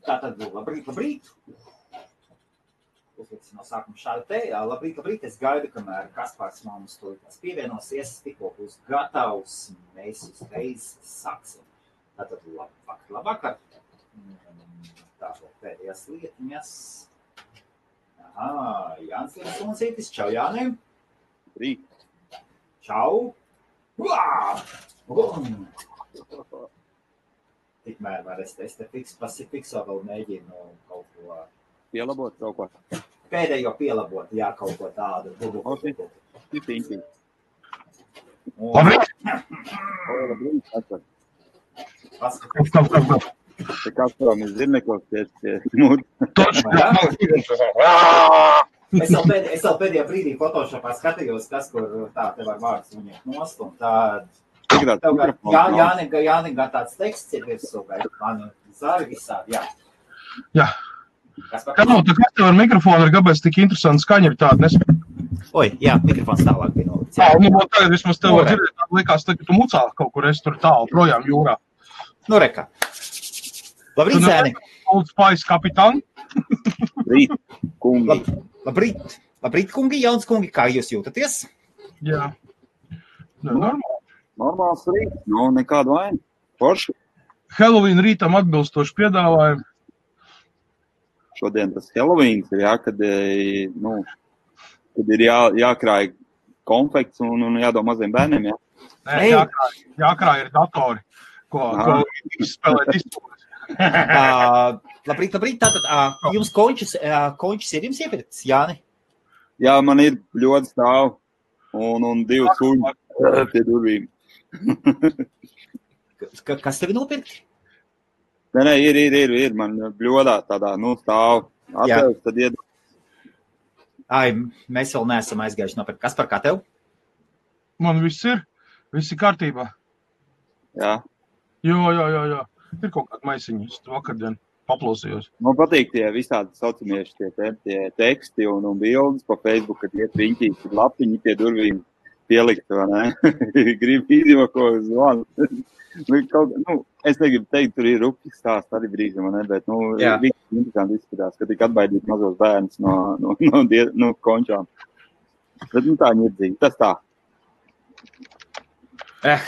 Tātad, labrīt. Uzliksim no sākuma šādu te. Labrīt. Es gaidu, kamēr Kaspars mums tūlītās pievienosies. Tikko būs gatavs. Mēs uzreiz sāksim. Tātad, labvakar. Tātad, pēdējās lietiņas. Jānis Linsūncītis. Čau, Jānim. Rīt. Čau. Tikmēr var es te fikso vēl mēģinu kaut ko... Pielabot kaut ko. Pēdējo pielabot, jā, kaut ko tādu. Labrīt. Labrīt. Te Kasparam ir zirnekos pie mūtu. Es vēl pēdējā brīdī Photoshopā skatījos, kas, kur tā te var vārds viņiem nost, un tā... Jānim gan tāds teksts ir virsū, vai man zari visādi, jā. Jā. Kas tev ar mikrofonu ir, kāpēc tik interesanti skaņa ir tāda nespēj? Oi, jā, mikrofons tālāk bija nolikts. Tagad vismaz tev var dzirdēt, likās, ka tu mucā kaut kur esi tur tālu projām jūrā. Nu, reka. Labrīt, zēni. Old Spice kapitāni. Rīt, kungi. Labrīt, kungi, jauns kungi, kā jūs jūtaties? Jā. Normāli. Normāls rīt, nekādu vainu. Forši. Halloween rītam atbilstoši piedāvājumu. Šodien tas Halloweens ir, kad ir jākrāj konfekts un jādod maziem bērniem, jā? Nē, jākrāj ir datori, ko spēlēt izpūles. Labrīt, tātad jums končis ir jums iepirkts, Jāni? Jā, man ir ļoti stāv un 2 suņi pie durvīm. Kas tevi nopirkt? Nē, ir. Man bļodā tādā, stāv. Atvērs, tad iedod. Mēs vēl neesam aizgājuši nopirkt. Kas par kā tev? Man viss ir kārtībā. Jā. Jo. Ir kaut kāda maisiņa. Es vakardien paplausījos. Man patīk tie visādi saucamieši tie teksti un bildes pa Facebook, kad iet riņķīs, lapiņi pie durvīm pielikt, vai ne? Gribu izjoko zvanu. Es negribu teikt, tur ir rupji stāsts arī brīžam, bet, visi interesanti izskatās, ka tik atbaidīt mazos bērnus no končām. Bet, tā ņirdzīga, tas tā.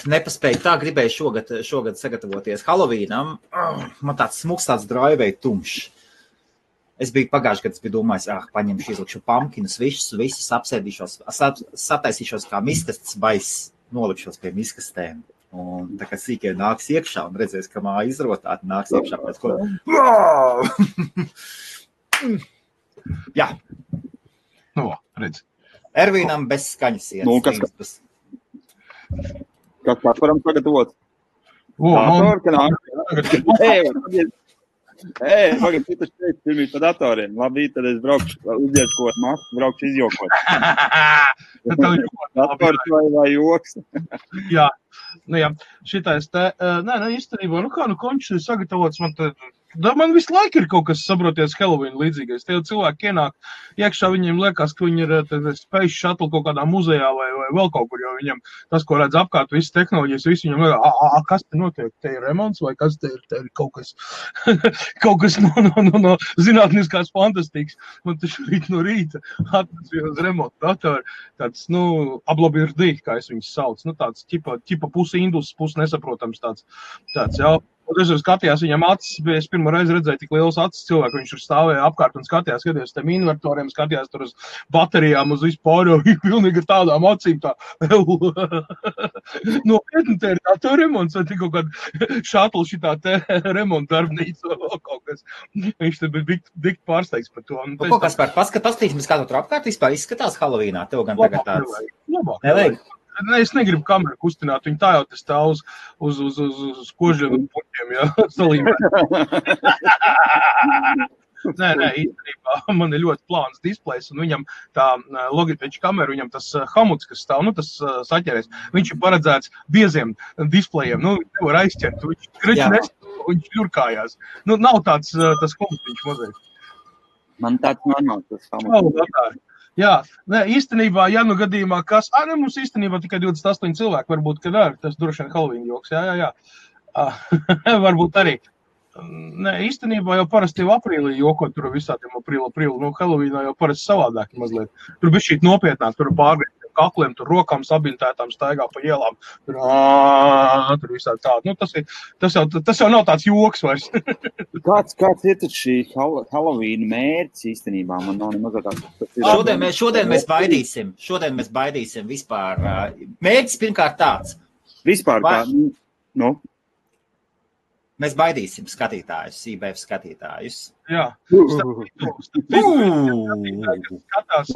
Nepaspēju tā, gribēju šogad sagatavoties Halloweenam. Man tāds smuks, tāds draivei tumšs. Es biju pagājuši, kad es biju domājis, paņemšu, izlikšu pumpkinus, visus apsēdīšos, sataisīšos kā miskasts baiss, nolikšos pie miskastēm. Un tā kā sīkie nāks iekšā un redzēs, ka māja izrotāti nāks iekšā pēc ko. Jā. Redz. Ervīnam bez skaņas iet. Kas varam sagatavot? Pagad, tu taču teici pirmīt pa datoriem. Labi, tad es braukšu, uzdieskot masku, braukšu izjokot. Dators vai joks? Jā. Šitais te, īstenībā, končs ir sagatavots, man visu laiku ir kaut kas, saproties, Halloween līdzīgais. Tie cilvēki ienāk iekšā, viņiem liekas, ka viņi ir space shuttle kaut kādā muzejā vai vēl kaut kur, jo viņam tas, ko redz apkārt, visas tehnoloģijas, visi viņam liekas, kas te notiek? Te ir remonts vai kas te ir kaut kas, kaut kas no zinātniskās fantastikas. Man taču rīt no rīta atnesa uz remontu datoru, tāds, ablabirdi, kā es viņus sauc, tāds ķipa pusi indus, pusi nesaprotams tāds, jā. Un es skatījās viņam acis, es pirmo reizi redzēju tik liels acis cilvēku, viņš tur stāvēja apkārt un skatījās tiem invertoriem, skatījās tur uz baterijām, uz vispār, pilnīgi tādām acīm tā. Nopietni, te ir tā remonts, vai tik kaut kāda šatla šitā te remonta darbnīca vai kaut kas. Viņš te bija dikt pārsteigts par to. Ko, Kaspar, paskatīsimies, kā tu tur apkārt vispār izskatās Halloweenā, tev gan tagad tāds. Labāk. Nevajag. Es negribu kameru kustināt, viņi tā jau te stāv uz kožiem un puķiem, jā, salīmē. Nē, īstenībā man ir ļoti plāns displejs, un viņam tā Logitech kamera, viņam tas hamuts, kas stāv, tas saķeries, viņš ir paredzēts bieziem displejiem, nevar aizķert, viņš kreči nestāv, viņš ļurkājās. Nav tāds tas komutiņš mazliet. Man tāds normāls tas hamuts. Jā, īstenībā, ja gadījumā kas... mums īstenībā tikai 28 cilvēki, varbūt, kad tas droši vien Halloween joks, jā. Varbūt arī. Nē, īstenībā jau parasti jau aprīlī jokot tur visādiem aprīlu. Nu, Halloweenā jau parasti savādāk mazliet. Tur bija šī nopietnāk, tur pārgriezt kakliem, tur rokām sabintētām staigā pa ielām. Tur visādi tādi. Nu, tas jau nav tāds joks vairs. Kāds ir tad šī Halloween mērķis īstenībā? Man nav nemaz tāds. Šodien mēs baidīsim vispār. Mērķis pirmkārt tāds. Vispār tā, nu? Mēs baidīsim skatītājus, IBF skatītājus. Jā. Skatās,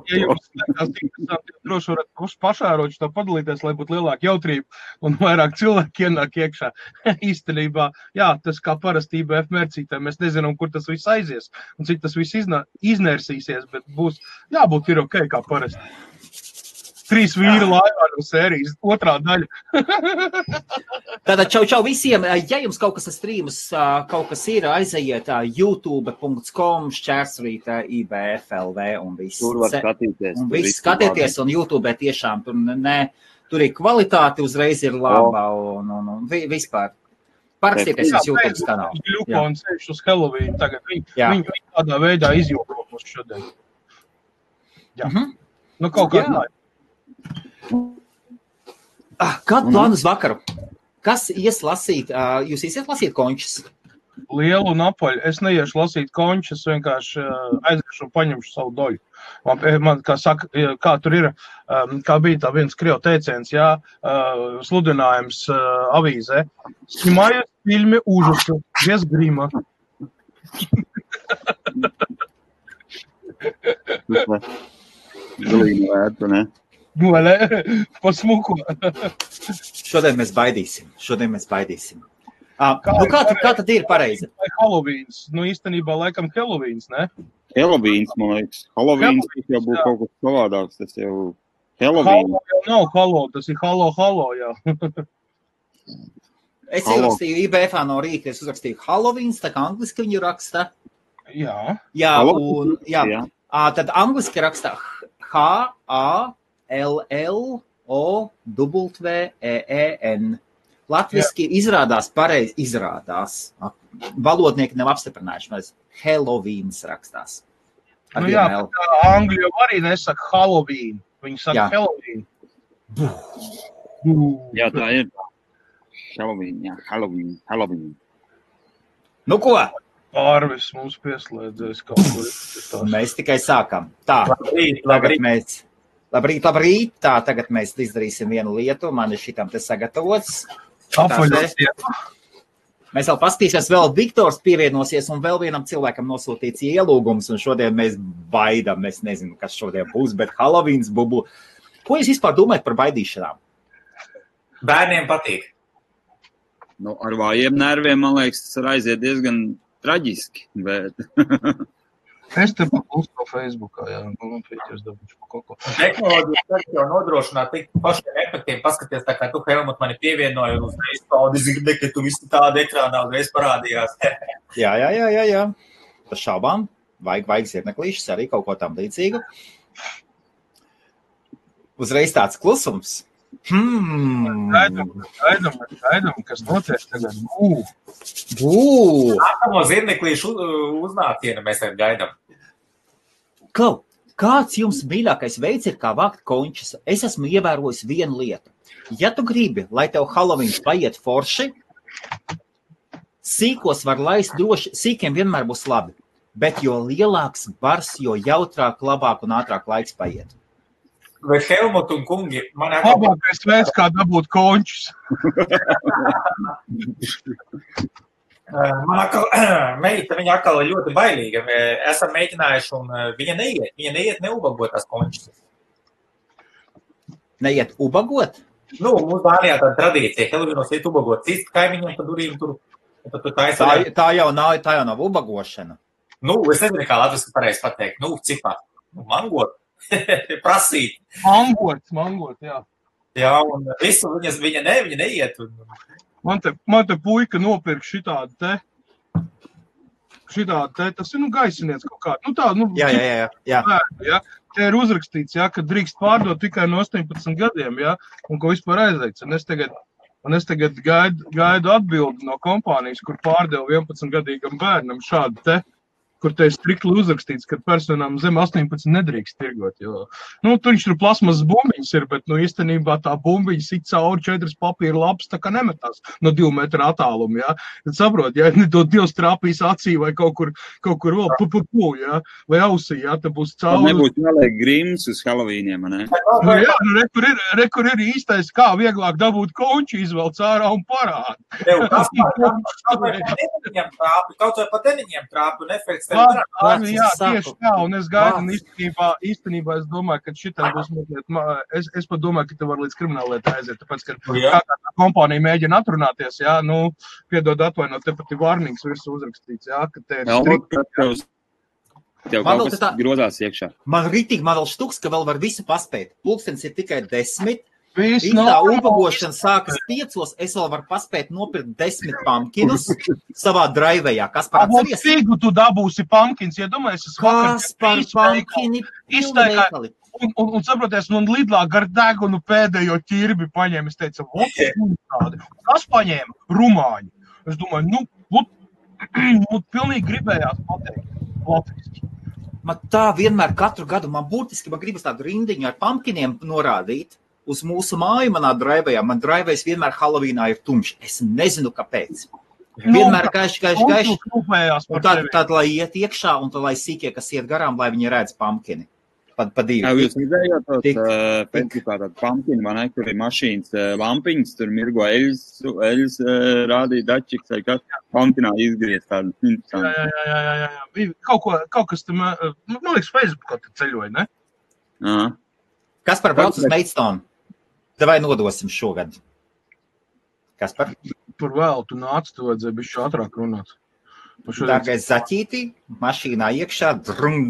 ja jums skatās interesanti, droši varat pašāroči to padalīties, lai būtu lielāka jautrība un vairāk cilvēki ienāk iekšā. Īstenībā, jā, tas kā parasti IBF mērcītē, mēs nezinām, kur tas viss aizies un cik tas viss iznersīsies, bet būs jābūt ir ok kā parasti. 3 vīri laivā no sērijas, 2. daļa. Tātad čau visiem, ja jums kaut kas ar streamus, kaut kas ir, aizejiet youtube.com// IBFLV un viss. Tur var skatīties. Un viss skatieties, un YouTube tiešām tur ir kvalitāte, uzreiz ir laba un vispār. Parakstieties uz YouTube kanālu. Ļuko un ceļš uz Halloween tagad. Viņi tādā veidā izjūko mūs šodien. Jā. Nu, kaut kā tā. Kādu plānu uz vakaru? Kas ies lasīt? Jūs iesiet lasīt končus? Lielu un apaļu. Es neiešu lasīt končus, vienkārši aiziešu un paņemšu savu doļu. Man kā saka, kā tur ir, kā bija tā viens krievu teiciens, jā, sludinājums avīzē. Sņimājot filmi ужаса, без грима. Galīgi vērtu, ne? Pasmuko. Šodien mēs baidīsim. Kā tad ir pareizi? Halloweens. Nu, īstenībā laikam Halloweens, ne? Halloweens, man liekas. Halloweens jau būtu kaut kas savādāks. Tas jau Halloween. Hallo jau nav hallo, tas ir hallo, jā. Es ierakstīju IBFā no rīta, es uzrakstīju Halloweens, tā kā angliski viņu raksta. Jā. Jā, un tad angliski raksta HALLOWEEN. Latviski izrādās pareizi, valodnieki nav apstiprinājuši, mēs Halloweens rakstās. Nu jā, bet angļu jau arī nesaka Halloween, viņi saka Halloween. Jā, tā ir. Halloween. Nu ko? Pārvis mums pieslēdzēs kaut kur. Mēs tikai sākam. Tā, labrīt. Tā, tagad mēs izdarīsim vienu lietu. Man ir šitam te sagatavots. Mēs vēl paskatīsies, vēl Viktors pievienosies un vēl vienam cilvēkam nosūtīts ielūgums. Un šodien mēs baidām. Es nezinu, kas šodien būs, bet Halloweens bubu. Ko jūs vispār domājat par baidīšanām? Bērniem patīk. Nu, ar vājiem nerviem, man liekas, tas aiziet diezgan traģiski, bet... Es te paklustu no Facebookā, jā, man pieķers dabūšu pa kaut ko. Tehnoloģijas jau nodrošināt tik pašiem efektiem, paskaties, tā kā tu, Helmut, mani pievienoji un uzreiz tādi zirdi, ka tu visi tādi ekrānā uzreiz parādījās. Jā. Par šaubām, vajag zirneklīšas, arī kaut ko tam līdzīgu. Uzreiz tāds klusums. Gaidam, kas notiek tagad. Nākamo zirneklīšu uznācienu mēs arī gaidam. Kāds jums mīļākais veids ir, kā vākt končus? Es esmu ievērojis vienu lietu. Ja tu gribi, lai tev Halloweens paiet forši, sīkos var laist droši, sīkiem vienmēr būs labi, bet jo lielāks bars, jo jautrāk, labāk un ātrāk laiks paiet. Vai Helmut un kungi, labākais veids, kā dabūt končus. Man meita, viņa atkal ir ļoti bailīga. Esam mēģinājuši un viņa neiet neubagotās končus. Neiet ubagot? Nu, mums Dānijā tāda tradīcija, Halloweenos iet ubagot. Cist kaimiņiem pa durīm tur taisa. Tā jau nav ubagošana. Nu, es nezinu, kā latviski pareizi pateikt. Nu, cipā. Mangot. Prasīt. Mangot, jā. Jā, un visu viņa neiet. Man te puika nopirk šitādi te, tas ir, gaisiniec kaut kādu. Jā. Te ir uzrakstīts, jā, ka drīkst pārdot tikai no 18 gadiem, jā, un ko vispār aizliegts. Un es tagad Un es tagad gaidu atbildi no kompānijas, kur pārdeva 11-gadīgam bērnam šādu te, kur te ir strikli uzrakstīts, ka personām zem 18 nedrīkst tirgot, jo, viņš tur plasmas bumbiņas ir, bet, īstenībā tā bumbiņa sit cauri 4 papīra lapas, tā kā nemetās no 2 metru attālumu, jā. Tad saprot, ja Dievs trāpīs acī vai kaut kur vēl, jā, vai ausī, jā, tad būs cauri. Nebūs jāliek grims uz Halloweeniem, ne? Jā, kur ir īstais, kā vieglāk dabūt konču, izvelc ārā un parāda. Kaut vai pa deniņiem trāpi, un efekts Jā, tieši tā, un es gaidu, un īstenībā es domāju, ka šitam būs mazliet, es pat domāju, ka te var līdz krimināllietai aiziet, tāpēc, ka kā kompānija mēģina atrunāties, jā, piedod atvainot, te pat ir vārnīgs virsū uzrakstīts, jā, ka te ir strikti. Tev kaut kas grozās iekšā. Man vēl štuks, ka vēl var visu paspēt. Pulkstens ir tikai 10. Viss tā ubagošana sākas 5, es vēl varu paspēt nopirkt 10 pumpkinus savā draivējā. Kas par atceries? Figu tu dabūsi pumpkins, ja domājies, es Kas par pumpkini iztaigā. Un saproties, un Lidlā gar degunu pēdējo ķirbi paņēma, es teicu, kas paņēma? Rumāņi. Es domāju, pilnīgi gribējās pateikt latviski. Man tā vienmēr katru gadu, man gribas tādu rindiņu ar pumpkiniem norādīt. Uz mūsu māju manā draivējā. Man draivējs vienmēr Halloweenā ir tumšs. Es nezinu, kāpēc. Vienmēr gaiši. Un tad, lai iet iekšā, un tad, lai sīkie, kas iet garām, lai viņi redz pumpkini. Pa 2. Jūs redzējāt Facebookā tādu pumpkini, man kur ir mašīnas lampiņas, tur mirgo eļas rādīja dačiks, vai kas pumpkinā izgriezt tādu. Jā. Kaut kas tam, man liekas, Facebookā te ceļoja, ne? Aha. Kas par brauc uz Maidstone? Vai nodosim šogad? Kas par? Par vēl, tu nāc, tu vajadzēja bišķi ātrāk runāt. Dārgais zaķītī, mašīnā iekšā, drung.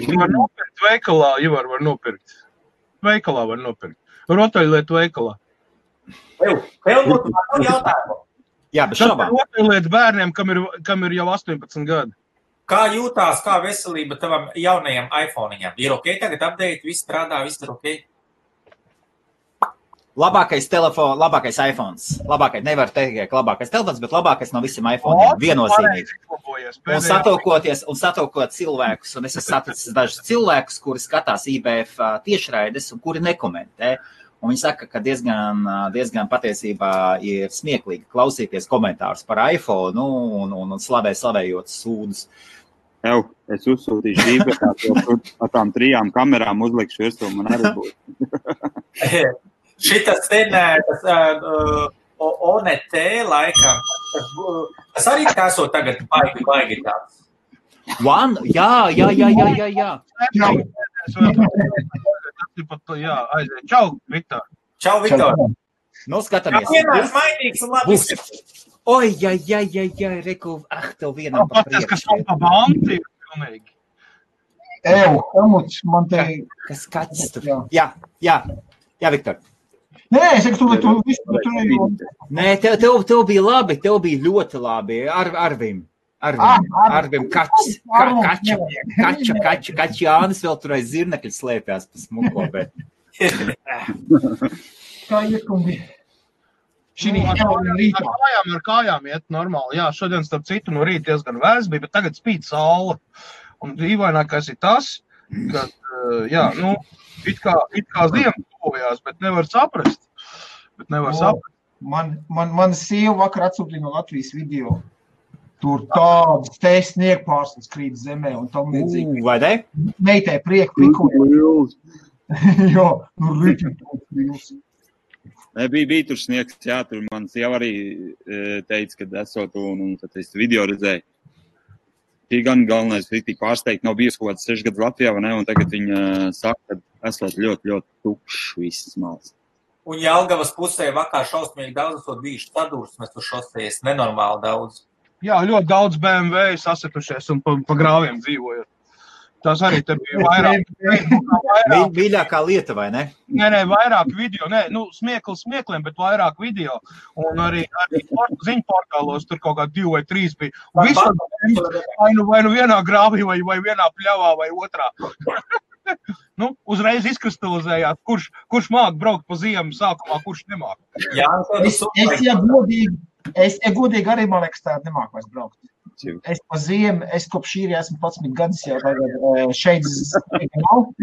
Var nopirkt veikalā, Ivar var nopirkt. Veikalā var nopirkt. Rotaļlietu veikalā. Helmut, man jautājumu. Jā, bet šobā. Rotaļlietu bērniem, kam ir jau 18 gadi. Kā jūtās, kā veselība tavam jaunajam iPhone-iņam? Ir ok tagad update, viss strādā, viss ir ok? Labākais iPhones. Nevar teikt, ka labākais telefons, bet labākais no visiem iPhone-iem. Viennozīmīgi. Un satokot cilvēkus, un es esmu saticis dažus cilvēkus, kuri skatās IBF tiešraides un kuri nekomentē. Un viņi saka, ka diezgan patiesībā ir smieklīgi klausīties komentārus par iPhone un slavējot sūdus. Es uzsūtīšu dīpētā ar tām 3 kamerām uzlikšu virsū, man arī būtu. Šitas ONT laikam, tas arī esot tagad baigi tāds. Jā. Čau, Viktor. Čau, Viktor. Skatāmies. Vienmēr mainīgs un labi. Oi, reku, tev vienam pa priekšu. Kas pa banti ir pilnīgi. Helmuts, man te... Kas kaķis tur? Jā, Viktor. Nē, es saku, tu visu turēju. Nē, tev bija labi, tev bija ļoti labi. Arvim kaķis. Kaķi Jānis vēl tur aiz zirnekļa slēpjās pa smuko, bet... Kā iekungi? Ar kājām iet normāli. Jā, šodien starp citu no rīta diezgan vēs bija, bet tagad spīd saule. Un dīvainākais ir tas, ka, it kā ziema tuvojās, bet nevar saprast. Man sieva vakar atsūtīja no Latvijas video. Tur tādas te sniegpārslas krīt zemē un tam līdzīgi. Vai ne? Meitē prieku pikuļu. Jā, rīķi tūs. Bija tur sniegs, jā, tur man sieva arī teica, kad esot un tad es video redzēju. Tī gan galvenais bija tik pārsteigt, nav bijis kaut kāds 6 gadus Latvijā, vai ne, un tagad viņa saka, ka esot ļoti, ļoti tukšs visas malas. Un Jelgavas pusē vakar šausmīgi daudz esot bijuši sadursmes uz šosejas, nenormāli daudz. Jā, ļoti daudz BMW sasitušies un pa grāviem dzīvojot. Tas arī te bija vairāk. Mīļākā lieta, vai ne? Nē, vairāk video. Smiekliem, bet vairāk video. Un arī ziņu portālos tur kaut kā 2 vai 3 bija. Un vai nu vienā grāvī, vai vienā pļavā, vai otrā. Nu, uzreiz izkristalizējāt, kurš māk braukt pa ziemu sākumā, kurš nemāk. Jā, es godīgi arī, man liekas, tā nemāk vairs braukt. Es pa ziemu, es kopš šī esmu 11 gadus jau tagad šeit nav.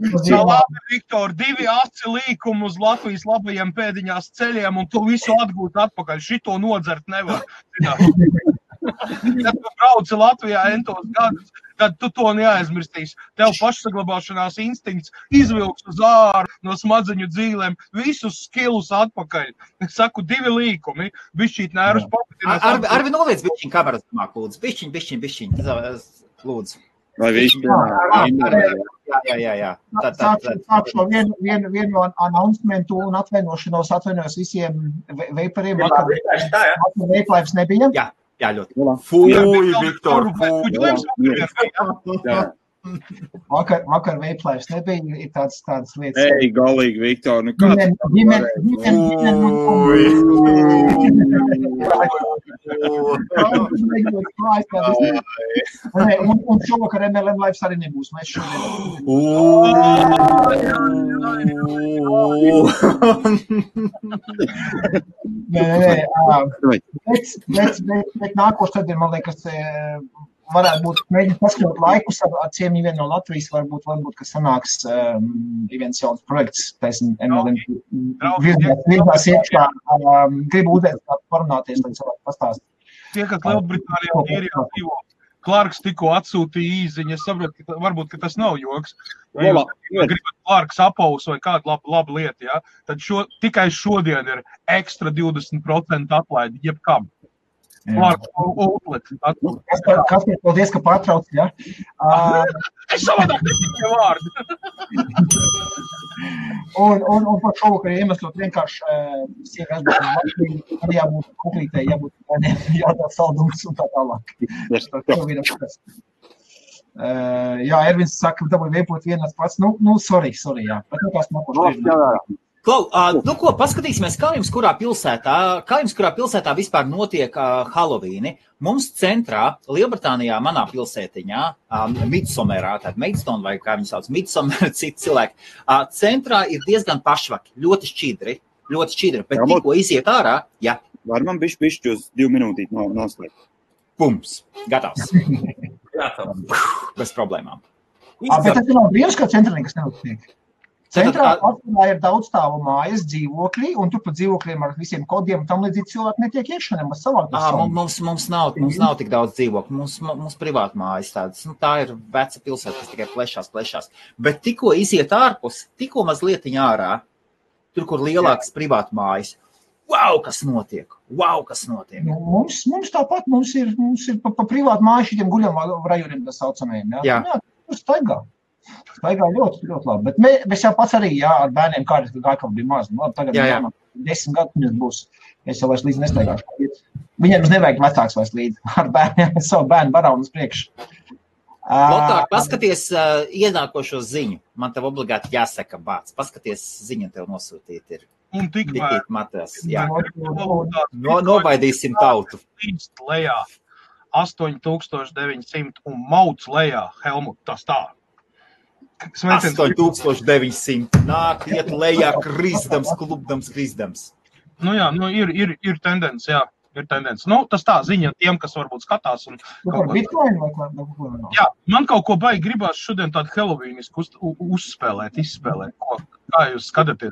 Labi, Viktor, 2 aci līkumi uz Latvijas labajiem pēdiņās ceļiem, un tu visu atgūt atpakaļ. Šito nodzert nevar. Kad tu brauci Latvijā entos gadus, tad tu to neaizmirstīs. Tev pašsaglabāšanās instinkts izvilks uz āru no smadzeņu dzīlēm, visus skilus atpakaļ. Es saku, 2 līkumi, bišķīt nērus papatinās. Arvi noliec bišķiņ kameras domāk, lūdzu. Bišķiņ. Lūdzu. Vai viņš Jā. Sākšu vienu announcementu un atvainojos visiem veipariem. Veiplaips nebija. Jā, ļoti. Fūj, Viktor, Vakar veiplaips nebija, ir tādas lietas. Ei, galīgi, Viktor, nu kā? Un šovakar MLM Lives arī nebūs. Mēs Bet nākošais tad, man liekas, varētu būt mēģināt paskatot laikus ar ciemiņu vienu no Latvijas, varbūt, ka sanāks viens jauns projekts, taisn MLM virzās iekšā. Gribu uzēt parunāties, lai cilvēku pastāst. Tie, kas Lielbritānijā un Īrijā dzīvo, Clarks tikko atsūtīja īziņu, es saprotu, ka varbūt, ka tas nav joks. Ja gribat Clarks apaus vai kādu labu lietu, ja? Tad tikai šodien ir ekstra 20% atlaidi, jebkam. Clarks outlet. Kas ir paldies, ka pārtrauc, ja? Es savādāk netikai vārdu. Un par šovakar iemeslot vienkārši siekas arī jābūt kuklītē, jādod saldums un tā tālāk. Jā, Ervins saka, ka dabūj veipot vienās pats. Sorry, jā. Bet nekās nākoši. Klau, ko, paskatīsimies, kā jums kurā pilsētā vispār notiek Halloween. Mums centrā, Lielbritānijā, manā pilsētiņā, Midsommerā, tāda Maidstone vai kā viņi sauc, Midsommer, citi cilvēki, centrā ir diezgan pašvaki, ļoti šķidri, bet tikko iziet ārā, jā. Var man bišķi uz 2 minūtīt noslēgt? Pums, gatavs. Bez problēmām. Bet tas nav brīvs, kā centrā nekas neuztiek. Centrā ir daudzstāvu mājas, dzīvokļi, un tur pa dzīvokļiem ar visiem kodiem un tam līdzīgi cilvēki netiek iekšā, nemaz savāk. Mums nav tik daudz dzīvokļu, mums privāta mājas tādas. Tā ir veca pilsēta, kas tikai plešās. Bet tikko iziet ārpus, tikko mazlietiņ ārā, tur, kur lielākas privāta mājas, wow, kas notiek. Mums tāpat, mums ir pa privātu māju šitiem guļam rajoniem, tā saucamajiem. Jā, tur staigā ļoti labi, bet mēs jau pats arī, ar bērniem kādreiz gāju bija maz. Tagad 10 gadu būs, es jau vairs līdzi nestaigāšu. Viņiem nevajag vecāks vairs līdzi, ar bērniem, savu bērnu barānu uz priekšu. Lotār, paskaties ienākošo ziņu. Man tev obligāti jāsaka bāc. Paskaties ziņu tev nosūtīt ir. Un tikmēr. Nobaidīsim tautu. Līdz lejā 8900 un mauc lejā, Helmut, tas tā. 8900. Nāk, iet lejā, krizdams. Nu jā, ir tendence, jā. Ir tendence. Tas tā ziņa tiem, kas varbūt skatās. Bitcoin vai ko? Jā, man kaut ko baigi gribās šodien tādu Halloweenisku izspēlēt. Kā jūs skatāties?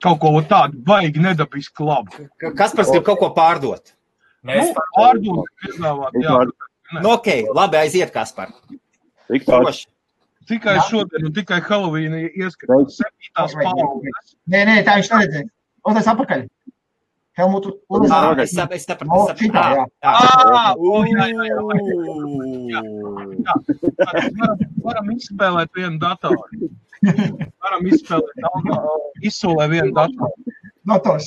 Kaut ko tādu baigi nedabisku labu. Kaspars grib kaut ko pārdot? Pārdot, piedāvāt, jā. Ok, labi, aiziet, Kaspar. Tikai šodien un tikai Halloween ieskatās 7. paudzes. Nē, tā viņš neredzēja. Tas apakaļ. Helmutu. Es sapratu. Varam izspēlēt vienu datoru. Izsolē vienu datoru. Dators,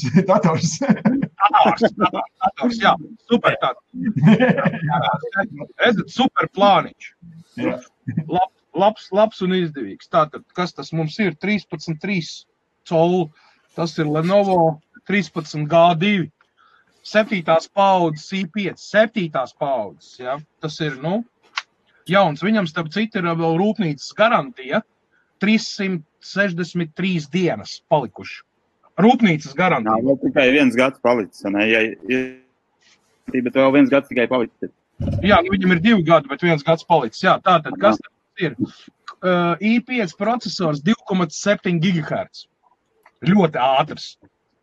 jā. Super tāds. Redzat, super plāniņš. Labs un izdevīgs. Tātad, kas tas mums ir? 13,3 colu. Tas ir Lenovo 13G2. 7. paudzes i5. 7. paudzes, ja? Tas ir, jauns. Viņam, starp citu, ir vēl rūpnīcas garantija. 363 dienas palikuši. Rūpnīcas garantija. Jā, tikai 1 gads palicis, ne? Bet vēl 1 gads tikai palicis. Jā, viņam ir 2 gadi, bet 1 gads palicis. Jā, tātad, kas ir? i5 procesors 2,7 GHz. Ļoti ātrs.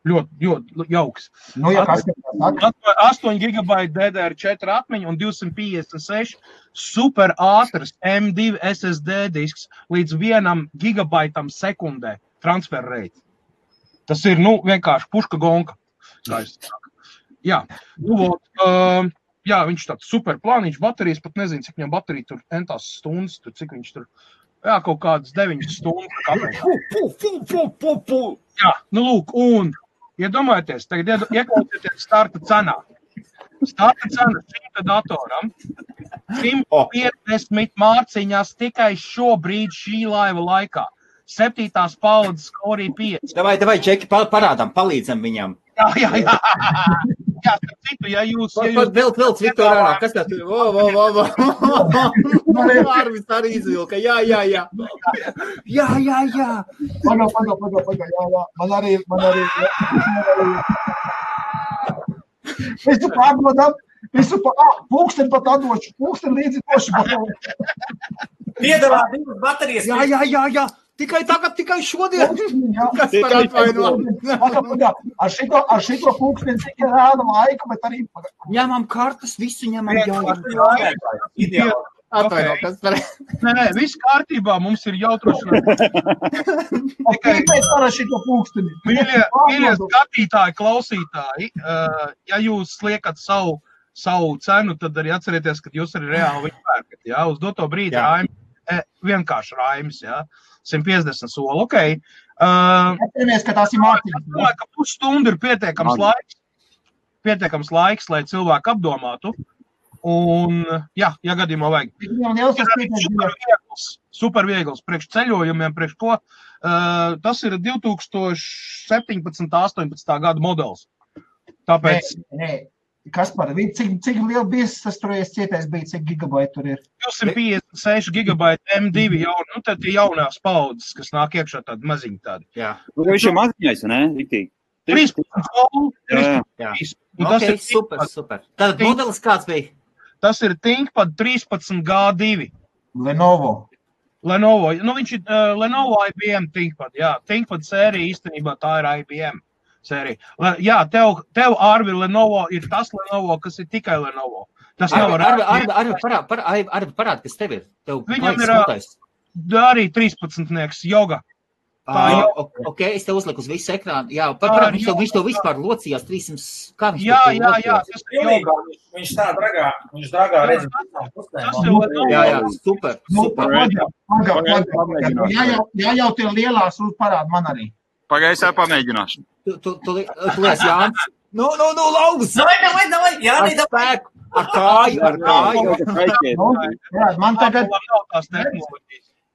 Ļoti jauks. 8 GB DDR4 atmiņa un 256 super ātrs M2 SSD disks līdz 1 gigabaitam sekundē transfer rate. Tas ir, vienkārši puška gonka. Jā, jā, viņš tāds super plāniņš, baterijas, pat nezinu, cik viņam baterija tur entās stundas, tur, cik viņš tur, jā, kaut kādas 9 stundas. Jā, lūk, un iedomājieties, tagad ieklausieties starta cenā. Starta cena šim datoram 150 mārciņās tikai šobrīd šī laiva laikā. 7. paudzes Core i5. Davai, Džeki, palīdzam viņam. Jā, citu, ja jūs... Vēl Viktor ārā, kas tā tur? Arvis arī izvilka, jā. Man arī. Visu pārdodam, pulksteni pat atdošu, pulksteni līdzi došu. Piedalā 2 baterijas. Jā. Tikai šodien. Kas par atvaino? Ar šito pulksteni tikai rāda laiku, bet arī... Ņemam kartas, visu ņemam Ideāli. Atvaino, kas par... Nē, viss kārtībā, mums ir jautrošanās. Tikai par šito pulksteni. Mīļie skatītāji, klausītāji, ja jūs liekat savu cenu, tad arī atcerieties, ka jūs arī reāli viņu pērkat. Jā, uz doto brīdi vienkārši raimis, jā. 150 soli, okei. Atceramies, ka tās ir mārciņas. Domāju, ka pusstundu ir pietiekams laiks, lai cilvēku apdomātu. Un, jā, gadījumā vajag. Super viegls, priekš ceļojumiem, priekš ko. Tas ir 2017. 18. gada modelis. Tāpēc... Nē. Kas par cik liela biezs tas tur cietais bija, cik gigabaiti tur ir? 256 gigabaiti M2 jau, tad ir jaunās paudzes, kas nāk iekšā tādi maziņi tādi. Jā. Viņš ir maziņais, ne? 13 soli. Jā. Ok, super. Tātad modelis kāds bija? Tas ir ThinkPad 13G2. Lenovo. Viņš ir Lenovo IBM ThinkPad, jā. ThinkPad sērija īstenībā tā ir IBM. Sērija. Jā, tev Arvi Lenovo ir tas Lenovo, kas ir tikai Lenovo. Tas nav Arvi parād, kas tev ir. Viņam ir arī 13-nieks joga. Ok, es te uzliku uz visu ekrānu. Jā, viņš to vispār locījās 300. Kā viņš jā. Viņš tā dragā redz. Jā, super. Jā, jau tie lielās parāda man arī. Pagaisā pamēģināšu. Tu lies, Jānis. Nu, lauks! Davai! Jāni, spēku! Ar kāju! Man tagad...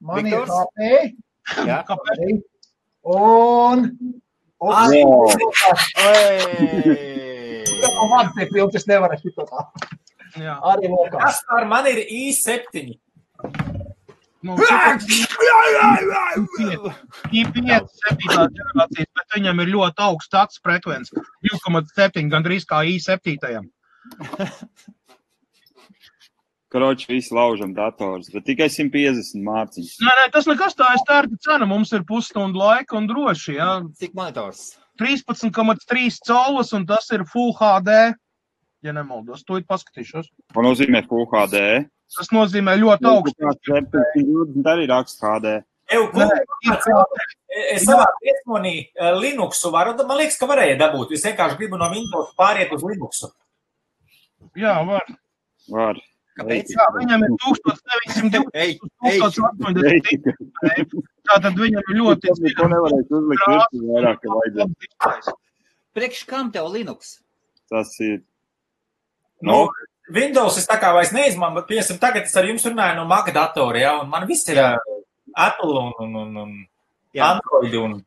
Man ir HP. Jā. Un... Man te piltis nevar šito tā. Arī lokā. Kas par man ir i7? i5 7. ģenerācijas, bet viņam ir ļoti augsts takts frekvence. 2,7, gandrīz kā i7. Kroči, visi laužam dators, bet tikai 150 mārciņas. Nē, tas nekas tā ir starta cena. Mums ir pusstundu laika un droši, jā. Cik monitors? 13,3 colus un tas ir Full HD. Ja nemaldos, to ir paskatīšos. Ko nozīmē Full HD? Tas nozīmē ļoti augstu. 720 arī raksts HD. Es savā piesmonī Linuxu varu, man liekas, ka varēja dabūt. Es vienkārši gribu no Windows pāriet uz Linuxu. Jā, var. Var. Kāpēc? Jā, viņam ir 1980. Tātad viņam ir ļoti... Ko nevarēs uzlikt virsmu vairāk, ka vajadzētu. Priekš kam tev Linux? Tas ir... Windows es tā kā vairs neizmanu, bet piemēram tagad es ar jums runāju no Mac datora, ja, un man viss ir Apple un Android un...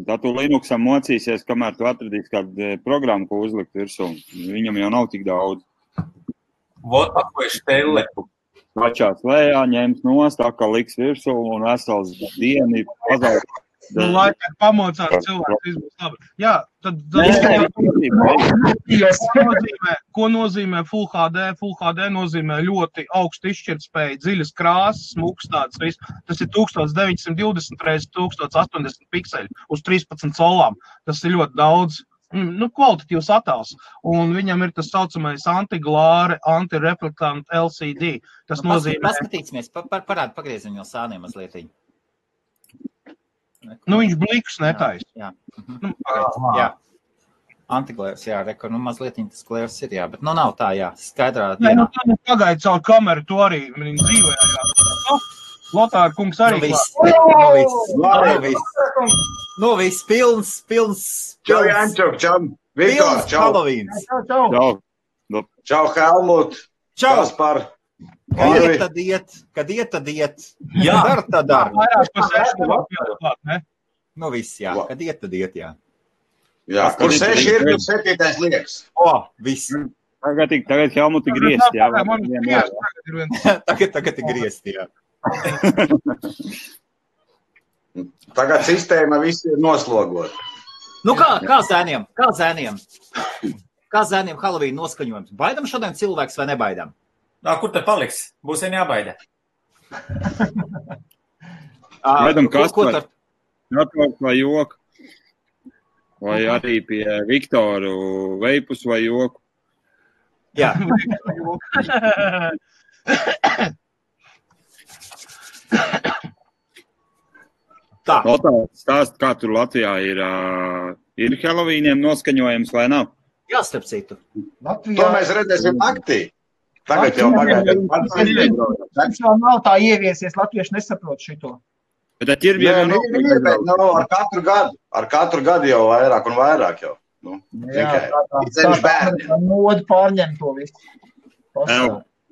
Tā tu Linuxam mocīsies, kamēr tu atradīs kādu programmu, ko uzlikt virsū. Viņam jau nav tik daudz. Vot, ko es telepu. Vačās lējā, ņems nost, tā kā liks virsū un vesels dieni pazaudē. Lai tā pamocās cilvēks, viss būs labi. Jā, tad ko nozīmē Full HD? Full HD nozīmē ļoti augstu izšķirtspēju, dziļas krāsas, smuks tāds viss. Tas ir 1920 x 1080 pikseli uz 13 solām. Tas ir ļoti daudz. Kvalitatīvs attēls. Un viņam ir tas saucamais antiglāre, antireflektant LCD. Tas nozīmē... Paskatīsimies, pagriezim jau sāniem mazlietiņu. Viņš blikus netais. Jā. Antiglērs, jā, reko, mazlietiņ tas glērs ir, jā, bet nav tā, jā, skaidrā dienā. Pagaid caur kameru, to arī dzīvē, jā. Lotāra kungs arī. Viss, pilns. Čau, Jančuk, čau, Viktor, čau. Halloweens. Čau, Helmut. Čau. Kaspar. Kad iet, tad iet. Jā. Tad dar. Vairāk pa 6 klāt, ne? Viss, jā. Kad iet, tad iet, jā. Jā, kur 6 ir, tur 7. liekas. Viss. Tagad Helmuti griezt, jā. Tagad ir griezt, jā. Tagad sistēma visi ir noslogota. Kā zēniem? Kā zēniem Halloween noskaņojums? Baidam šodien cilvēks vai nebaidam? Kur te paliks? Būs vien jābaida. Baidam Kaspar. Atvērt vai joku. Vai arī pie Viktoru veipus vai joku. Jā. Tā. Stāst, kā tur Latvijā ir Halloweeniem noskaņojums vai nav? Jā, starp citu. To mēs redzēsim naktī. Tagad jau pagaidām. Mums vēl nav tā ieviesies, latvieši nesaprot šito. Bet ķirbiem ar katru gadu jau vairāk un vairāk jau. Tā moda pārņem to visu.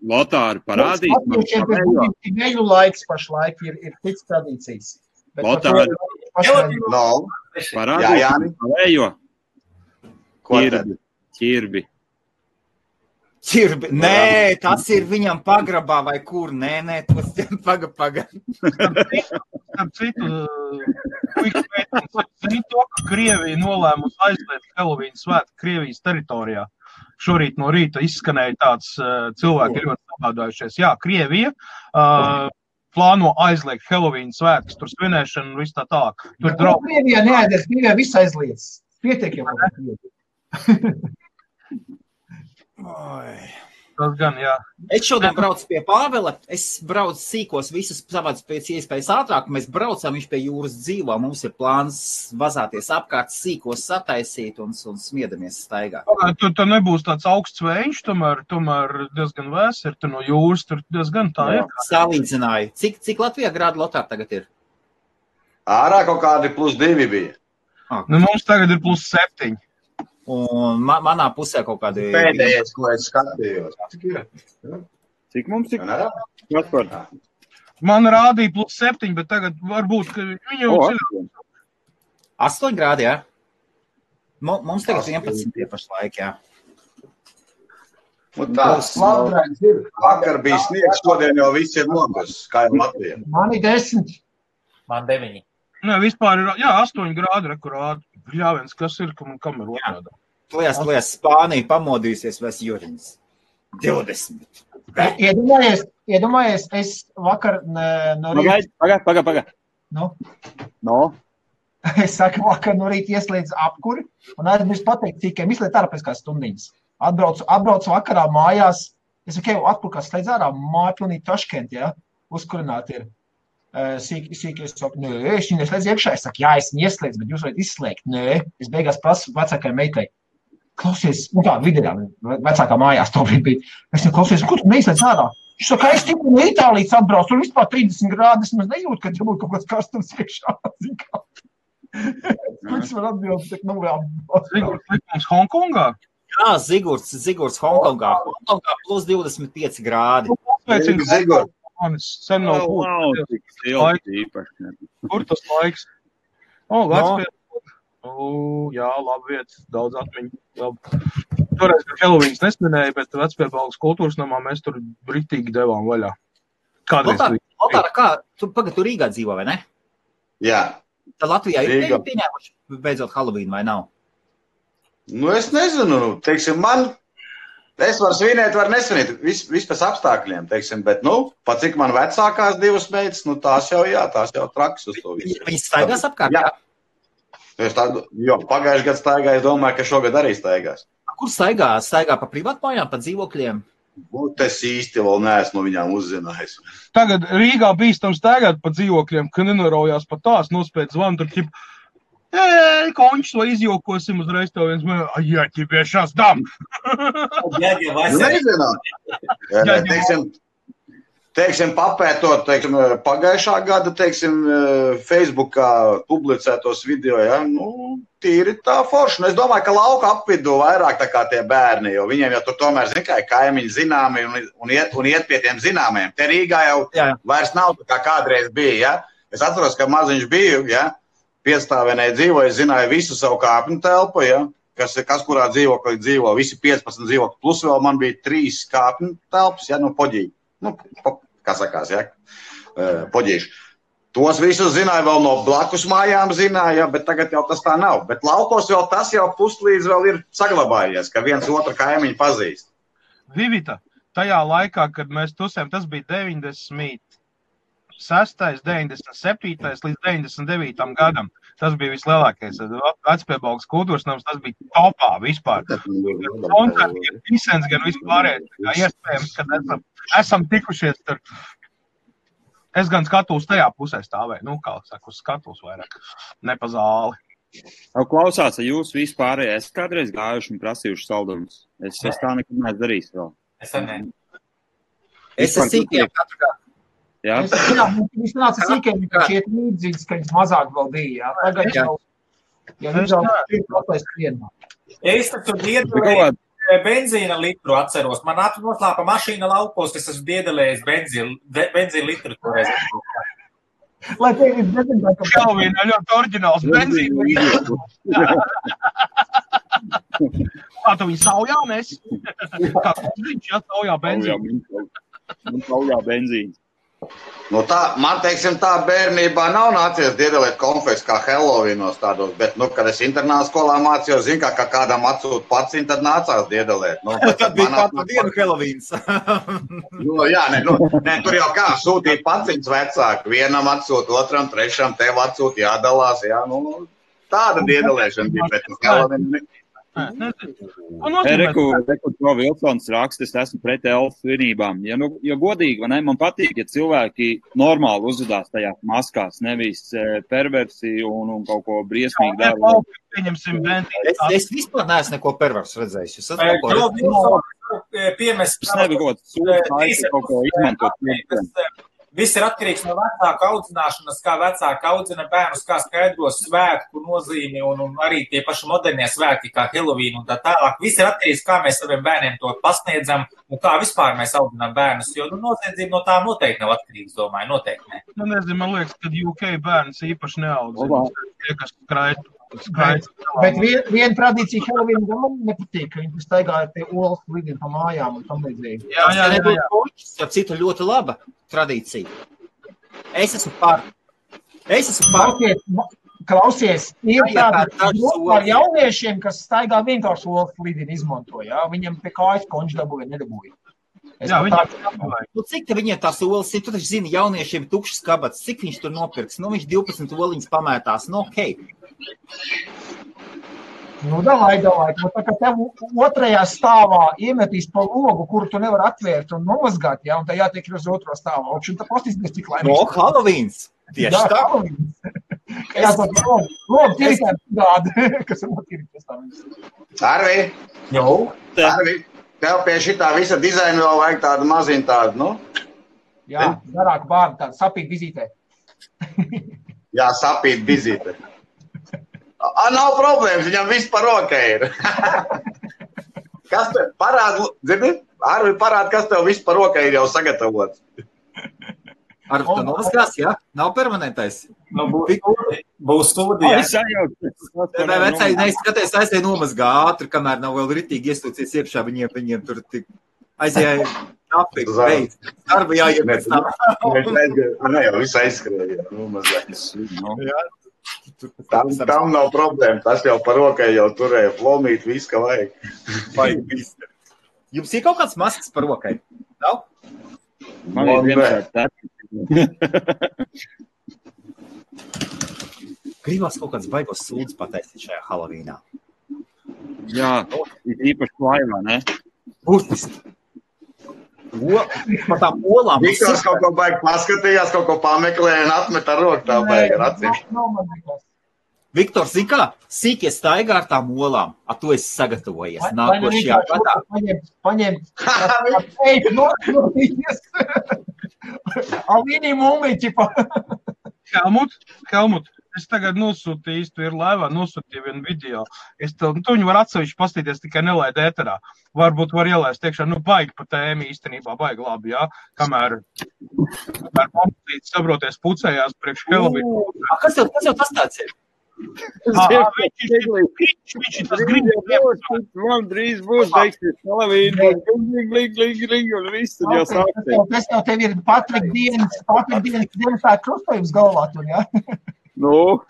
Lotāri parādīs. Latviešiem pēc neļu laiks pašlaik ir cits tradīcijas. Lotāri parādīs pavējo. Ķirbi. Nē, tas ir viņam pagrabā vai kur. Nē, tos paga. Starp citu, zini to, ka Krievija nolēmusi aizliegt Halloween svētku Krievijas teritorijā. Šorīt no rīta izskanēja tāds cilvēki ļoti sabādājušies. Jā, Krievija plāno aizliegt Halloween svētkus, tur svinēšanu un viss tā tālāk. Krievijā neaizies, Krievijā viss aizliedz. Pietiek jau. Tas gan, jā. Es šodien braucu pie Pāvela, es braucu sīkos visus savāds pēc iespējas ātrāk, mēs braucam, viņš pie jūras dzīvo, mums ir plāns vazāties apkārt, sīkos sataisīt un smiedamies staigā. Tur nebūs tāds augsts vējš, tomēr diezgan vēs ir, tur no jūras, tur diezgan tā ir. Salīdzināju. Cik Latvijā grādu Lotār tagad ir? Ārā kaut kādi +2 bija. Mums tagad ir +7. Un manā pusē kaut kādi... Pēdējais, ko es skatījos. Cik mums ir? Man rādīja +7, bet tagad varbūt, ka viņu... 8 grādi, jā? Mums tagad 11 pašlaik, jā. Tas slaudrains ir. Vakar bija sniegs, šodien jau viss ir nogus, kā jau Latvijā. Man ir 10. Man 9. Nē, vispār ir, 8 grādi rekurādi. Bļāviens, kas ir, kam ir otrādā? Plēs, Spānija pamodīsies vēs Juriņas. 20. Iedomājies, es vakar no rīta... Paga. No? Es saku, vakar no rīta ieslēdzu apkuri un aizmirst pateikt, cīkiem izliet ārā pēc kā stundiņas. Atbraucu vakarā mājās, es saku, atkur kā slēdz ārā, māja pilnīgi Taškent, jā, uzkurināt ir. Sīki es saku, nē, es viņu neslēdzu iekšā. Es saku, jā, es viņu ieslēdzu, bet jūs varat izslēgt. Nē, es beigās prasu vecākai meitai. Klausies, vidienā, vecākā mājās to bija. Es viņu klausies, kur tu neizslēdz ārā? Viņš saka, es tikko no Itālijas atbraucu, tur vispār 30 grādi, es maz nejūtu, ka tur būtu kaut kāds karstums iekšā. Kurš var atbildēt, Zigurds Hongkongā? Jā, Zigurds Hongkongā. Hongkongā +25 grādi. Zigurds. Manis sen nav Kur tas laiks? Jā, labi vietas, daudz atmiņu. Toreiz, kad Halloweens nesminēja, bet Vecpiebalgas kultūras namā mēs tur britīgi devām vaļā. Kādreiz. Lotāra, kā? Tu Rīgā dzīvo, vai ne? Jā. Tā Latvijā ir Rīga. pieņēmuši beidzot Halloween, vai nav? Nu, es nezinu, teiksim, es varu svinēt, varu nesvinēt, viss pēc apstākļiem, teiksim, bet, pat cik man vecākās divas meitas, tās jau traks uz to visu. Viņas staigās apkārt, jā? Pagājuši gadu staigāju, es domāju, ka šogad arī staigās. Kur staigā? Staigā pa privātmājām, pa dzīvokļiem? Es īsti vēl neesmu no viņām uzzinājis. Tagad Rīgā bīstam staigāt pa dzīvokļiem, ka nenoroujās pa tās, nospēc zvanu, tur ķip, končs vai izjokosim uzreiz tev viens, jā, ķipiešās dam. Nezinām. Teiksim, papētot, pagājušā gada, Facebookā publicētos video, ja, tīri tā forši. Es domāju, ka lauka apvidū vairāk tā kā tie bērni, jo viņiem jau tur tomēr, kaimiņi zināmi un iet pie tiem zināmiem. Te Rīgā jau vairs nav tā kā kādreiz bija, ja. Es atceros, ka maziņš biju, ja, piedstāvienē dzīvoju, es zināju visu savu kāpņu telpu, ja, kas kurā dzīvoklī dzīvo, visi 15 dzīvokļi, plus vēl man bija 3 kāpņu telpas, ja, poģīgi. Kā sakās, ja, poģīši. Tos visus zināja, vēl no blakus mājām zināja, ja, bet tagad jau tas tā nav. Bet laukos vēl tas jau puslīdz vēl ir saglabājies, ka viens otru kaimiņu pazīst. Vivita, tajā laikā, kad mēs tusējām, tas bija 96., 97. līdz 99. gadam. Tas bija vislielākais. Vecpiebalgas kultūras nams, tas bija topā vispār. Koncerti, gan visens, gan vispārējais. Iespējams, ka esam tikušies tur. Es gan skatos tajā pusē stāvēju. Kā saka, uz skatos vairāk. Ne pa zāli. Klausās, jūs vispārējais esat kādreiz gājuši un prasījuši saldumus. Es tā nekad neesmu darījis vēl. Es arī. Es esmu sīkiem katru gadu. Jā? Viņš nāca sīkiem, ka šiet līdzīgs, ka viņš mazāk vēl bija. Tagad jau, Es taču diedelēju benzīna litru atceros. Man noslāpa mašīna laukos, es esmu diedelējis benzīna litru toreiz. Lai tev ir dezināt, ka Kalvīna ļoti oriģināls benzīna litru. Kā tu viņu saujā mēs? Kā viņš saujā benzīna? Man saujā benzīna. Man, tā bērnībā nav nācies diedelēt konfekts kā Halloweenos tādos, bet, kad es internāta skolā mācījos, kā kādam atsūt paciņu, tad nācās diedelēt. Tad bija katru dienu Halloweens. Tur jau kā sūtīt paciņas vecāku, vienam atsūt, otram, trešam, tev atsūt, jādalās, jā, tāda diedelēšana bija, bet Halloween. Reku Vilsons raksta, es esmu pret elfu svinībām. Ja godīgi, vai ne, man patīk, ja cilvēki normāli uzvedās tajās maskās, nevis perversi un kaut ko briesmīgi dara. Es vispār neesmu neko perversu redzējis. Es nebiju kaut ko izmantot. Viss ir atkarīgs no vecāka audzināšanas, kā vecāka audzina bērnus, kā skaidros svētku nozīmi un arī tie paši modernie svētki, kā Halloween un tā tālāk. Viss ir atkarīgs, kā mēs saviem bērniem to pasniedzam un kā vispār mēs audzinām bērnus, jo noziedzība no tā noteikti nav atkarīgs, domāju, noteikti ne. Nezinu, man liekas, ka UK bērns īpaši neaudzina. Tie, kas skraitu. Bet viena tradīcija Halloween man nepatīk, ka viņi staigāja tie olas lidina pa mājām un tam līdzīgi. Jā. Citu ļoti laba tradīcija. Es esmu par. Klausies, ir tādi par jauniešiem, kas staigā vienkārši olas lidina izmanto, jā? Viņam pie kājas konč dabūja, nedabūja. Cik te viņiem tās olas ir? Tu taču zini, jauniešiem tukšas kabats, cik viņš tur nopirks? Viņš 12 oliņas pamētās, okei. Davai. Tā kā tev otrajā stāvā iemetīs pa logu, kuru tu nevar atvērt un nomazgāt, jā, un tā jātiek uz otro stāvā. Un tā pastīsies, cik laimīgs. Halloweens. Tieši tā. Jāsaka, logu tīrikāt tādi, kas ir notīrīties tā. Arvi, tev pie šitā visa dizaina vēl vajag tādu maziņu tādu, Jā, garāku bārdu tādu, sapīt vizītē. Jā, sapīt vizītē. Nav problēmas, viņam viss par rokai ir. Kas tev parāda, zini? Arvi parāda, kas tev viss par rokai ir jau sagatavots. Arvi, tu noskās, jā? Nav permanentais? Būs stūdī. Vecāji neizskaties, aizēj nomazgā ātri, kamēr nav vēl ritīgi iestūcies iekšā, viņiem tur tik Aizjāja kafiju, beidz. Darba jāiet pēc tam. Ne, jau viss aizskrēja. Tam nav problēma. Tas jau par rokai jau turēja flomīt, viss, ka vajag. Jums ir kaut kāds maskas par rokai? Nav? Man ir vienkārši tā. Gribās kaut kāds baigos sūdz pataisīt šajā Halovīnā. Jā, ir īpaši laivā, ne? Burtiski. Par tām olām. Viktors kaut ko baigi paskatījās, kaut ko pameklēja un atmet ar roku tā baigi ar acīm. Viktors, zin kā? Sīkie staigā ar tām olām. A tu esi sagatavojies. Nākošajā gadā. Paņem. Alvīnī mūmiķi. Helmut, es tagad nosūtīju, tu ir laivā, nosūtīju vienu video. Tu viņu var atsevišķi pastīties, tikai nelaid ēterā. Varbūt var ielaist tiekšā, baigi pa tēmi īstenībā, baigi labi, jā. Kamēr pamatīts sabroties pucējās priekš Helvīnu. Kas jau tas tāds ir? Viņš ir tas gribējums. Man drīz būs beigsies Halovīna. Gling, un viss tad jau sāksies. Tas jau tev ir Patrika dienas tā krustojums galvā tur, jā? Nu.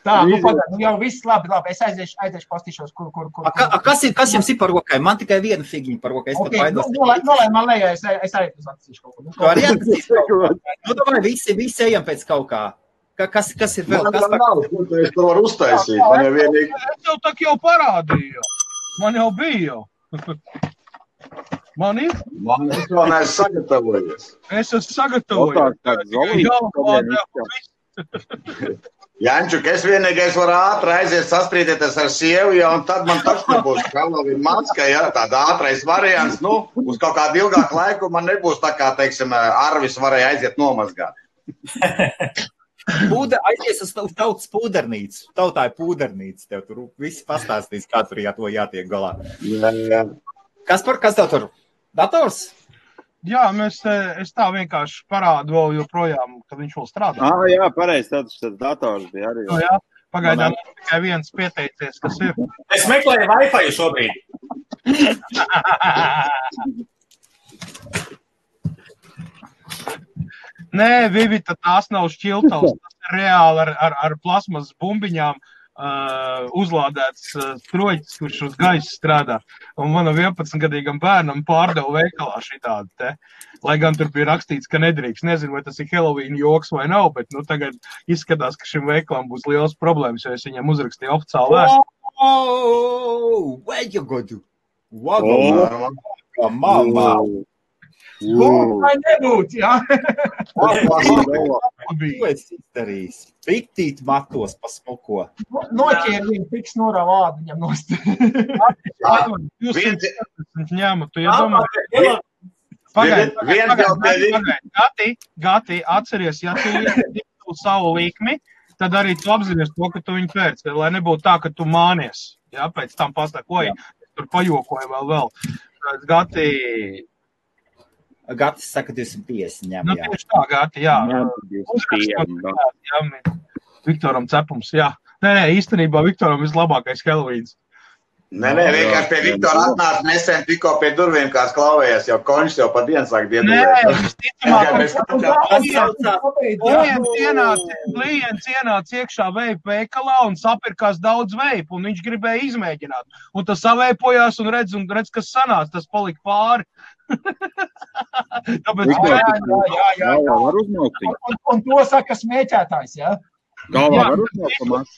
Tā, pagad, jau viss labi. Es aiziešu pastīšos, kur. Kas jums ir par rokai? Man tikai viena figiņa par rokai. Okay, nolai man lejā, es arī pastīšu kaut ko. Tu arī atzīst kaut ko. Domāju, visi ejam pēc kaut kā. Kas ir vēl? Man nav, es to varu uztaisīt. Man jau vienīgi. Es tev tak jau parādīju. Man jau bija jau. Man ir? Es vēl neesmu sagatavojies. Es esmu sagatavojies. Jančuk, es vienīgais varu ātri aiziet sastrīdēties ar sievu, ja, un tad man taču nebūs Halovīna maska, ja, tāda ātrais variants, uz kaut kādu ilgāku laiku man nebūs tā kā, teiksim, Arvis varēja aiziet nomazgāt. Aizies uz tautas pūdernīcu. Tautā ir pūdernīca. Tev tur visi pastāstīs, kā tur to jātiek galā. Jā. Kas tev tur? Dators? Jā, es tā vienkārši parādu vēl joprojām, ka viņš vēl strādā. Jā, pareizi, tas dators bija arī. Jā, pagaidām tikai viens pieteicies, kas ir. Es meklēju Wi-Fi šobrīd. Nē, Vivita, tās nav šķiltavas, tas ir reāli ar plasmas bumbiņām uzlādēts stroģis, kurš uz gaisa strādā. Un manam 11-gadīgam bērnam pārdeva veikalā šitādi te. Lai gan tur bija rakstīts, ka nedrīkst. Nezinu, vai tas ir Halovīna joks vai nav, bet tagad izskatās, ka šim veikalam būs liels problēmas, jo es viņam uzrakstīju oficiāli vēstu. Where you go to? Mamma! Vai nebūt, jā? Ko esi izdarījis? Piktīt matos pa smuko. Noķēri viņu, piks norā vādu viņam nost. Jūs ņēmu, tu iedomā. Gati, atceries, ja tu iedītu savu likmi, tad arī tu apzinies to, ka tu viņu pēc, lai nebūtu tā, ka tu mānies. Jā, pēc tam pastākoji, tur pajokoju vēl. Gatis saka 250 ņem, jā. Tieši tā, Gati, jā. Viktoram cepums, jā. Nē, īstenībā Viktoram vislabākais Halovīns. Nē, vienkārši pie Viktora atnāca nesen tikko pie durvīm, kāds klauvējās, jau konšs jau pa dienu sāk diedulēt. Klients ienāca iekšā veipu veikalā un sapirkās daudz veipu, un viņš gribēja izmēģināt. Un tas saveipojās un redz, kas sanāca, tas palika pāri. Tāpēc, jā. Un to saka smēķētājs, jā?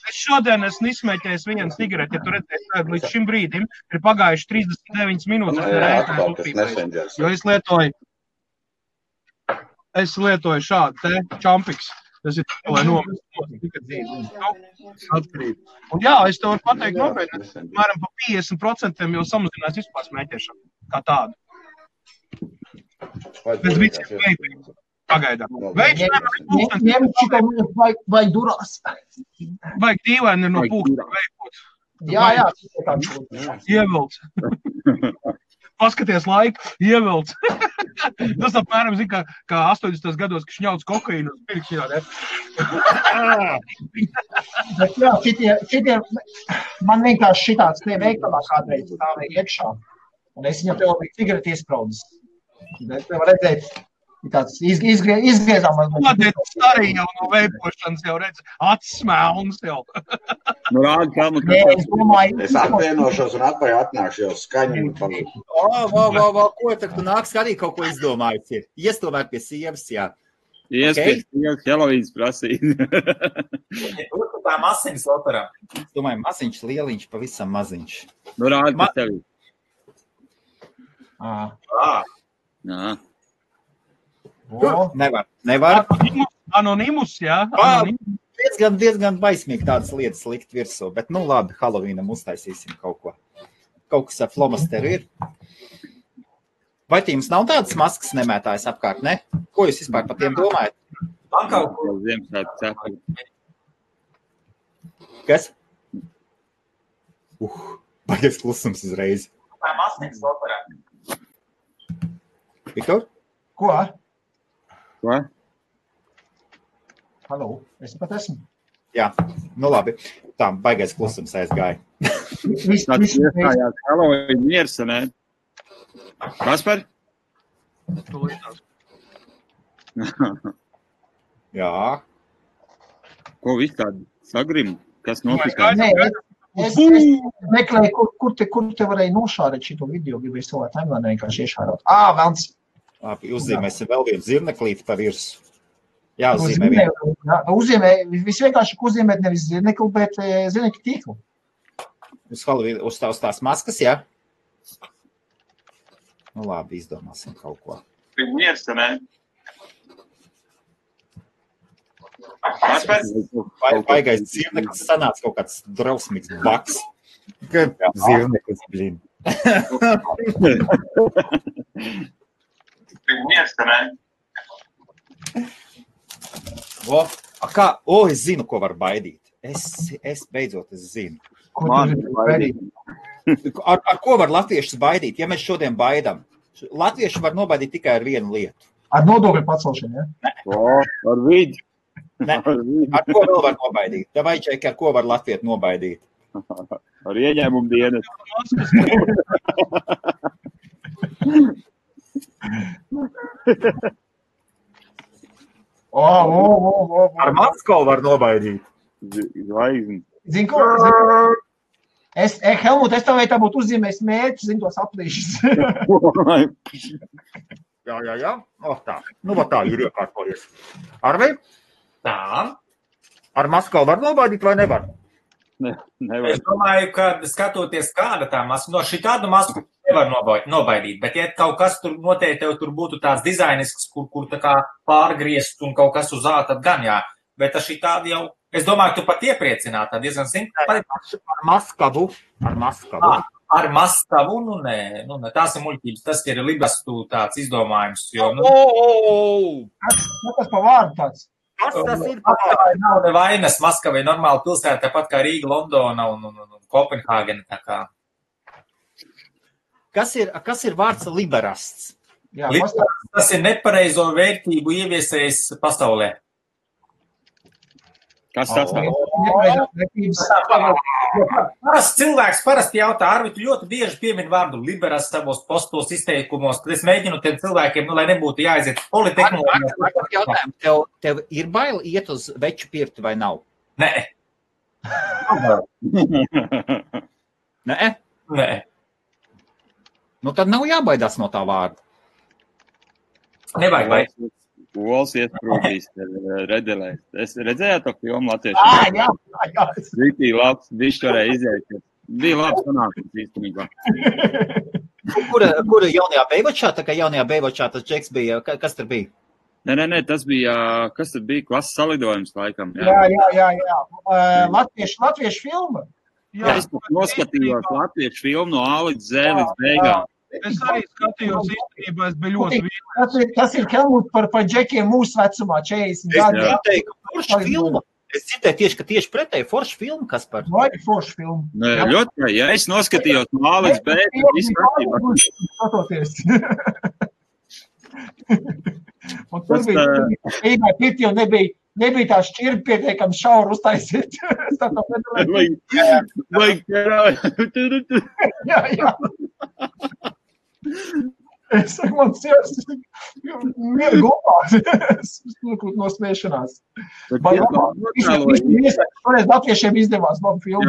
Es šodien esmu izsmēķējis vienu cigareti, ja tu redzēsi, līdz šim brīdim ir pagājuši 39 minūtes. Jo es lietoju šādu te čampiks. Tas ir, lai atkarību. Un jā, es tev varu pateikt nopietni, mēram pa 50% jau samazinās vispār smēķēšanu kā tādu. Bez viciem veipiem. Pagaidām. Ņem šitā vai durās. Vajag dīvaini no pūksta veipot. Jā. Ievilc. Paskaties laiku, ievilc. Tas apmēram, zin, kā 80. gados, ka šņauc kokaīnu uz pirkšķinā, ne? Bet jā, šitie, man vienkārši šitāds tie veikalā kādreiz stāvēja iekšā. Un es viņam tev biju cigareti iespraudis. Bet var redzēt, tāds izgriezām. Kodēts arī jau no veipošanas jau redz, atsmēlns jau. Nu, rādi, kā man Es domāju, Es atvienošos un atpakaļ atnākšu jau skaņu. Ko tad tu nāk skatīt, kaut ko izdomājis ir? Iestomēt pie sievas, jā. Iespēc, Helovīns prasīja. Tur tā masiņas operā. Es domāju, maziņš, lieliņš, pavisam maziņš. Nu, rādi, kas tev ir. Jā. Nevar. Anonimus, jā. Diezgan baismīgi tādas lietas likt virsū, bet nu labi, Halloweenam uztaisīsim kaut ko. Kaut kas ar flomasteru ir. Vai jums nav tādas maskas nemētājas apkārt, ne? Ko jūs vispār par tiem domājat? Man kaut ko. Ziemassvētku cepuri. Kas? Baigies klusums uzreiz. Tā masiņas operā. Viktor? ko? Ko? Halo, es pat esmu. Jā, nu labi. Tā, baigais klusums aizgāja. Tāds iestājās Halloween miers, ne? Kaspar? Jā. Ko viss tādi sagrim? Kas notikās? Nē, es meklēju, kur te varēja nošārēt šito video, gribēju savā timeline vienkārši iešārot. Velns. Labi, uzzīmēsim vēl vienu zirneklīti pa virsu. Jā, uzzīmē vienu. Uzzīmē, visvienkārši uzzīmēt nevis zirnekli, bet zirnekļu tīklu. Uz tās maskas, jā? Nu labi, izdomāsim kaut ko. Miers, ne? Baigais zirneklis sanāca kaut kāds drausmīgs baks. Zirneklis, blin. Miers, ne? Es zinu, ko var baidīt. Es beidzot zinu. Ar ko var latviešus baidīt? Ja mēs šodien baidām, latvieši var nobaidīt tikai ar vienu lietu. Ar nodokļu pacelšanu, ja? Ar vidi. Ne, ar ko vēl var nobaidīt? Vai čeki, ar ko var latviešu nobaidīt? Ar ieņēmumu dienas. Ar Maskovu var nobaidīt. Zvaigzni. Zini, ko? Helmut, es tev vai tā būtu uzzīmējis mērķi, zini, tos aplīšas. Jā. Tā. Nu, tā ir iekārtojies. Arvi? Tā. Ar Maskovu var nobaidīt vai nevar? Nevar. Es domāju, ka skatoties kāda tā maska, no šī tādu masku nevar nobaidīt, bet ja kaut kas tur noteikti tev tur būtu tāds dizainisks, kur tā kā pārgriezt un kaut kas uz āta, tad gan jā. Bet šī tāda jau, es domāju, tu pat iepriecināt, tā diezgan simpāti. Ar Maskavu. Ar Maskavu, nu nē, tās ir muļķības, tas ir libastu tāds izdomājums. Jo, Tas pa vārdu tāds. Tas ir Maskavai nav nevainas, Maskavai normāla pilsēta, tāpat kā Rīga, Londona un Kopenhāgena. Tā kā. Kas ir vārds liberasts? Jā, tas ir nepareizo vērtību ieviesējis pasaulē. Kas tas tā? Parasti cilvēks jautā, Arvi, tu ļoti bieži piemin vārdu liberas savos postos izteikumos, tad es mēģinu tiem cilvēkiem, lai nebūtu jāaiziet politehnoloģijā. Tev ir bail iet uz veču pirti vai nav? Nē. Nē? Nu tad nav jābaidās no tā vārda. Nevajag baidīt. Ols iesprūdīs redelēs. Es redzēju to filmu latviešu. Jā. Rītī labs, višķi varēja iziet. Bija labs sanākums īstenībā. Kura jaunajā Beivačā? Tā kā jaunajā Beivačā tas džeks bija, kas tur bija? Nē, tas bija, kas tur bija, klases salidojums laikam. Jā. Latviešu filma. Jā, es noskatījos latviešu filmu no A līdz Z līdz beigām. Es arī skatījos īstenībā, es biju ļoti viens. Tas ir Helmut par džekiem mūsu vecumā, 40 gadi. Es dzirdēju tieši, ka tieši pretēji forša filma, kas par? Vai forša filma? Nē, ļoti, ja es noskatījos no A līdz B, tad viss kārtībā. Skatoties. Un tur bija pirti jau nebija tā šķirba pietiekami šauru uztaisīt. Vajag ķerāju. Jā. Es saku, man sievas, mieru gulās, no smiešanās. Toreiz latviešiem izdevās labu filmu.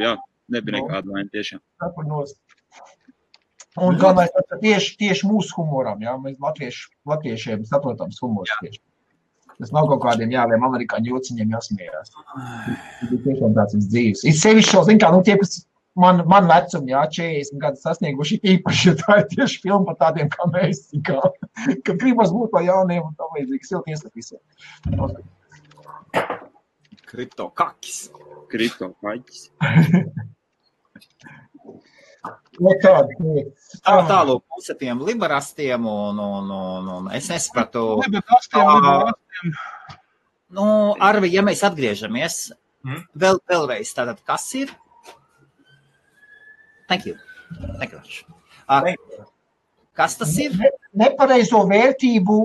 Jā, nebija nekāda vaina tiešām. Un galvenais tieši mūsu humoram, jā, mēs latviešiem saprotams humors tieši. Tas nav kaut kādiem jāviem amerikāņu jociņiem jāsmējās. Tas ir tiešām tāds dzīves. Ir sevišķi šo, zin kā, tie, kas man vecumi, jā, 40 gadu sasnieguši īpaši, jo tā ir tieši filma par tādiem kā mēs, ka gribas būt par jauniem un tā līdzīgi. Silti iesaku visiem. Kriptokakis. Tālūk, puse tiem liberastiem un es nesapratu. Liberastiem. Arvi, ja mēs atgriežamies, vēlreiz, tātad kas ir? Thank you. Kas tas ir? Nepareizo vērtību,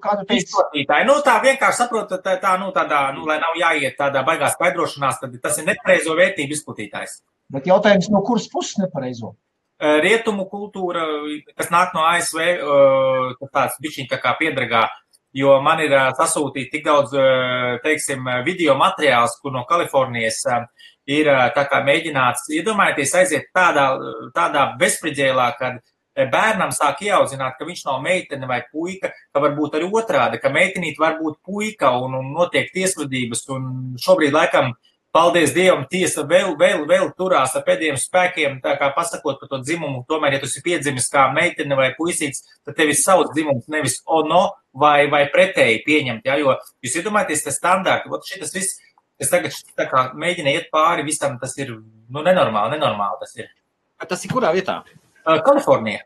kādu teicu? Izplatītāji. Tā vienkārši saprotat, lai nav jāiet tādā baigā skaidrošanās, tad tas ir nepareizo vērtību izplatītājs. Bet jautājums, no kuras puses nepareizo? Rietumu kultūra, kas nāk no ASV, tāds bišķiņ tā kā piedragā, jo man ir sasūtīt tik daudz, teiksim, video materiāls, kur no Kalifornijas ir tā kā mēģināts, iedomājieties, aiziet tādā bezspridzēlā, kad bērnam sāk ieaudzināt, ka viņš nav meitene vai puika, ka varbūt arī otrādi, ka meitenīt var būt puika un notiek tiesvedības, un šobrīd laikam, paldies Dievam, tiesa vēl turās ar pēdējiem spēkiem, tā kā pasakot par to dzimumu, tomēr, ja tu esi piedzimis kā meitene vai puisīts, tad tevis savs dzimums nevis ono vai pretēji pieņemt, jo jūs iedomājaties, tas standārti, šitas viss, es tagad tā kā mēģinu iet pāri visam, tas ir, nenormāli tas ir. Tas ir kurā vietā? Kalifornija.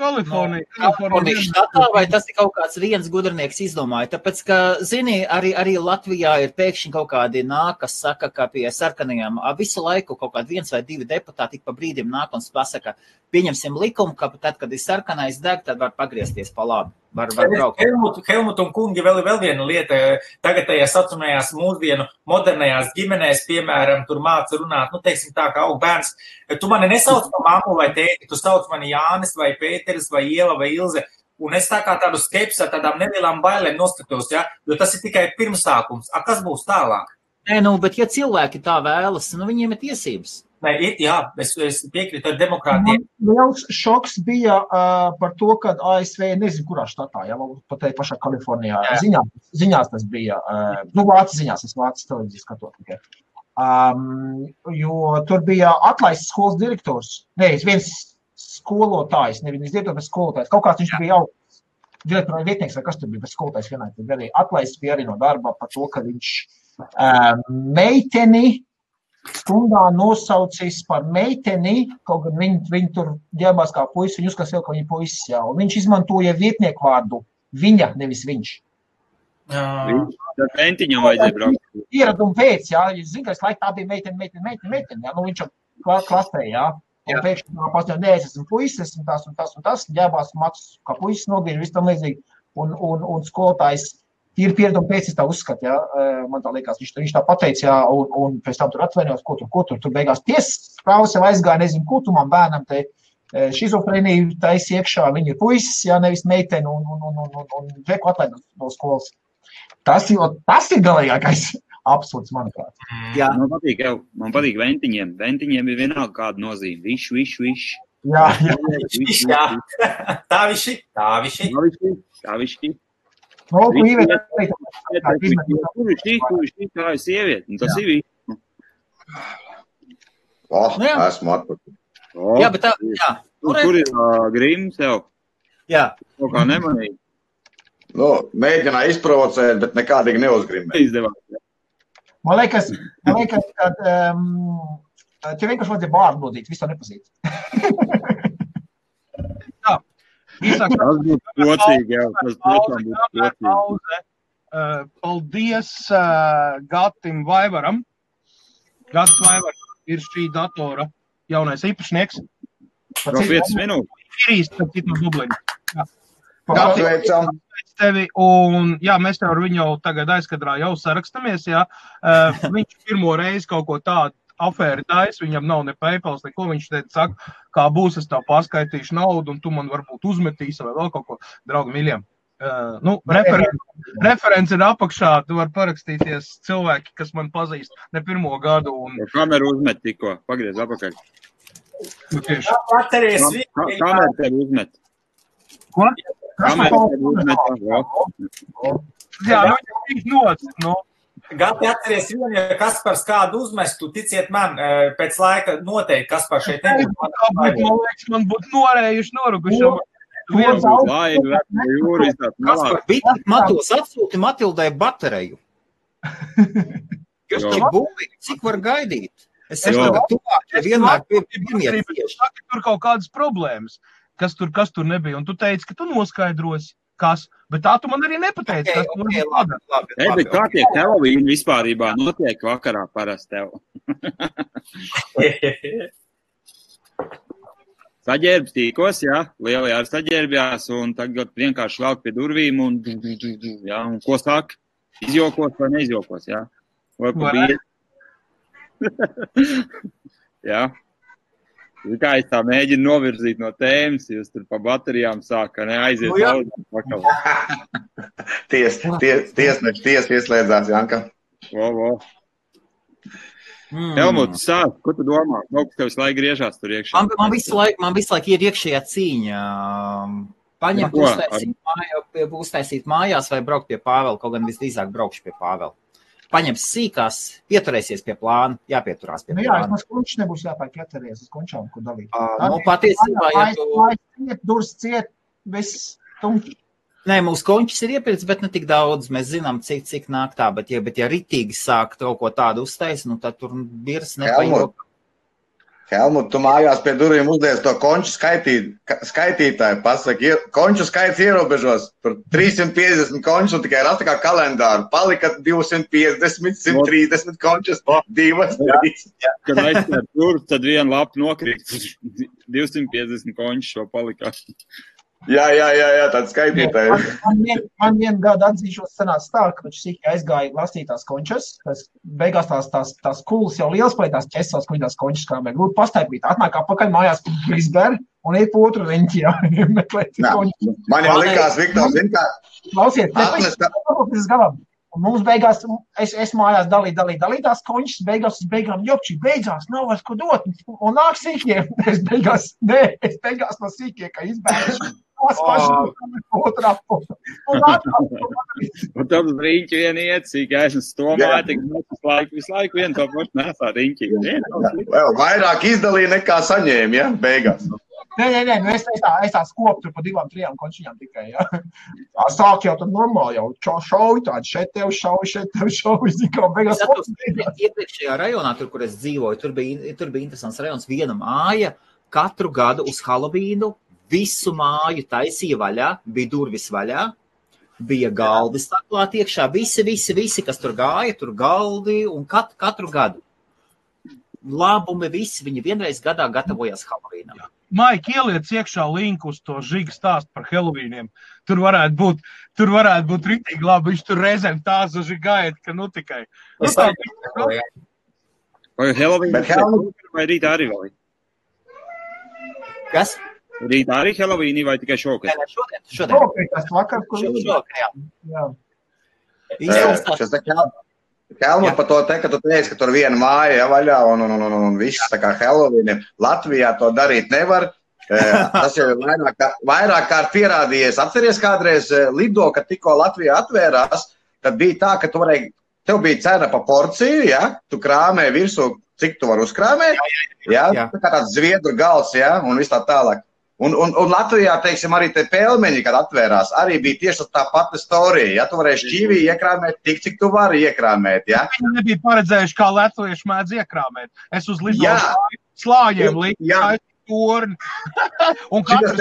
Kalifornija štatā, vai tas ir kaut kāds viens gudrinieks izdomāja? Tāpēc, ka, zini, arī Latvijā ir pēkšņi kaut kādi nāk, kas saka, ka pie sarkanajām visu laiku kaut kādi 1 vai 2 deputāti pa brīdim nāk un pasaka, pieņemsim likumu, ka tad, kad ir sarkanais deg, tad var pagriezties pa labi. Var braukt. Helmut un kungi vēl viena lieta, tagad tajās saucamajās mūsdienu modernajās ģimenēs, piemēram, tur māca runāt, teiksim tā, kā aug bērns, tu mani nesauc par mammu vai tēti, tu sauc mani Jānis vai Pēteris vai Ieva vai Ilze, un es tā kā tādu skepsi ar tādām nelielām bailēm noskatos, jo tas ir tikai pirmsākums. Kas būs tālāk? Bet ja cilvēki tā vēlas, viņiem ir tiesības. Es piekrītu ar demokrātiem. Liels šoks bija par to, ka ASV, nezinu, kurā štatā, pat te pašā Kalifornijā, ziņās tas bija, vācu ziņās, es vācu televīziju skatot tikai. Jo tur bija atlaists skolas direktors, viens skolotājs, nevis direktors, bet skolotājs, kaut kāds viņš bija jau direktora vietnieks, vai kas tur bija, bet skolotājs vienai, tad arī atlaists bija arī no darba par to, ka viņš meiteni stundā nosaucis par meiteni, kaut gan viņi tur ģēbās kā puisi, viņi uzskatās vēl, ka viņi puisis, un viņš izmantoja vietnieku vārdu viņa, nevis viņš. Tad mentiņam vajadzēja braukt. Ieradumu pēc, jūs zinu, ka es laiku tā bija meiteni, viņš klasē, un pēkšņi pasņot, es esmu puisis, esmu tas, ģēbās matus kā puisis nogriež, viss tam līdzīgi, un skolotājs ir pieredumi pēc, es tā uzskatu, man tā liekas, viņš tā pateica, un pēc tam tur atvainojos, ko tur beigās tiesas prāvas jau aizgāja, nezinu, ko tu man bērnam te šizofrēniju taisi iekšā, viņi ir puisis, nevis meiteni, un veku atlaidot no skolas. Tas ir galīgākais absurds, manuprāt. Man patīk ventiņiem. Ventiņiem ir vienalga kāda nozīme. Viš. Jā. Tā viši. Kur tā ir sieviete, un tas ir viss. Esmu atpakaļ. Jā, bet tā, Tur ir grims jau. Jā. Kaut kā nemanīgi. Mēģināja izprovocēt, bet nekādīgi neuzgrimēja. Izdevās. Man liekas, ka tev vienkārši vajadzēja bārdu nodīt, visu to nepazīt. Tas būtu pocīgi, tas tiešām būtu pocīgi. Paldies Gatim Vaivaram. Gats Vaivars ir šī datora jaunais īpašnieks. Pro 5 minūtes. Ir īsti, tad citu Dublini. Apsveicam. Tevi, un mēs tev ar viņu tagad aizkadrā jau sarakstamies, Viņš pirmo reizi kaut ko tādu afēri tais, viņam nav ne PayPals, neko, viņš teica, saka, kā būs, es tev paskaitīšu naudu, un tu man varbūt uzmetīsi vai vēl kaut ko, draugi miļiem. Referents ir apakšā, tu var parakstīties cilvēki, kas man pazīst ne pirmo gadu. Kameru uzmet tikko, pagriez apakaļ. Kameru tev uzmet. Ko? Kameru tev uzmet. Jā, viņš noc, Gati atceries vienu, ja Kaspars kādu uzmestu, ticiet man, pēc laika noteikti Kaspars šeit nebūtu. Man liekas, man būtu norējuši, noruguši. Matos atsūti Matildai bateriju. Kas tik būvīgi, cik var gaidīt? Es tagad tuvāk, ja vienmēr piemiet tieši. Tur kaut kādas problēmas, kas tur nebija, un tu teici, ka tu noskaidrosi, kas, bet tā tu man arī nepateici. Labi. Kā tiek Halloween vispārībā notiek vakarā parasti tev? Saģērbs tīkos, jā, lielajā ar saģērbjās, un tagad vienkārši velk pie durvīm, un ko sāk? Izjokos vai neizjokos, jā? Vai pa bīri? Jā. Kā es tā mēģinu novirzīt no tēmas, jūs tur pa baterijām sāka, aiziet daudz pakaļ. Tiesneši ieslēdzās, Janka. Vo. Helmut, sāk, ko tu domā? Kaut kas tev visu laiku griežās tur iekšā. Man visu laiku ir iekšējā cīņa. Paņemt, uztaisīt mājās vai braukt pie Pāvela, kaut gan visdrīzāk braukšu pie Pāvela. Paņems sīkās, pieturēsies pie plāna, jāpieturās pie plāna. Jā, es kunčs nebūs jāpāk ķeteries, es kunčām, ko dalīt. Patiesībā, ja tu... Durs ciet, viss tumķi. Nē, mūsu končis ir iepirkts, bet ne tik daudz. Mēs zinām, cik nāk tā, bet ja ritīgi sāk kaut ko tādu uztais, tad tur birs nepajok. Helmut, tu mājās pie durvīm uzliec to konču skaitītāju, pasaki, konču skaits ierobežos, tur 350 končus un tikai rasta kā kalendāru, palika 250, 130 končus, 2, 3. Kad aizsver tur, tad viena lapa nokrīt, 250 končus šo palika. Jā, tāds skaitītājs. Man vienu gadu atzīšos sanāca tā, ka viņš sīki aizgāja lasīt tās končas, beigās tās kulas jau liels pēc tās ķesās, ko viņi tās končas krāmē. Lūdzu pastaipīt, atnāk apakaļ mājās Brisbane un iet pa otru riņķi, meklēt končas. Man jau likās, Viktors, zin kā... Klausiet, un mums beigās, es mājās dalīju tās končas, beigām jopči, beidzās, nav vairs ko dot, un nāk sīkie, es beigās no sīkie, ka izbēgšu. Un tad uz riņķi vien iet, cik esmu stomāja, tik visu laiku vien to pašu nesā riņķi. Vēl vairāk izdalīja nekā saņēma, ja, beigās. Nē, es tā skopu tur pa 2-3 končiņām tikai, ja. Tā sāk jau tad normāli, jau šauj tādi, šeit tev šauj, zikā, beigās. Iepriekšējā rajonā, tur, kur es dzīvoju, tur bija interesants rajons, viena māja, katru gadu uz Hallowīnu visu māju taisīja vaļā, bija durvis vaļā, bija galdi staklāt iekšā, visi, kas tur gāja, tur galdi un katru gadu. Labumi visi, viņi vienreiz gadā gatavojās Halloweenam. Maik, ieliec iekšā linku uz to Žiga stāstu par Halloweeniem. Tur varētu būt ritīgi labi, viņš tur reizēm tā zaži gaida, ka nu tikai. Vai Halloween vai rītā arī vēl? Kas? Rītā arī Halloween vai tikai šokad? Šodien. Tas vakar, kur jā. Helmut par to te, ka tu teici, ka tur viena māja vaļā un viss tā kā Halloween. Latvijā to darīt nevar. Tas jau ir vairāk kārt pierādījies. Atceries kādreiz Lido, kad tikko Latvijā atvērās, tad bija tā, ka tev bija cena pa porciju, ja? Tu krāmē virsū, cik tu var uzkrāmēt, ja? Tā kā tāds zviedru gals, ja? Un viss tā tālāk. Un Latvijā, teiksim, arī te pelmeņi, kad atvērās, arī bija tieši tā pati storija. Ja tu varēji šķīvī iekrāmēt tik, cik tu vari iekrāmēt, ja? Viņi nebija paredzējuši, kā latvieši mēdz iekrāmēt. Es uz Lido slāņiem liku torni. Un katrs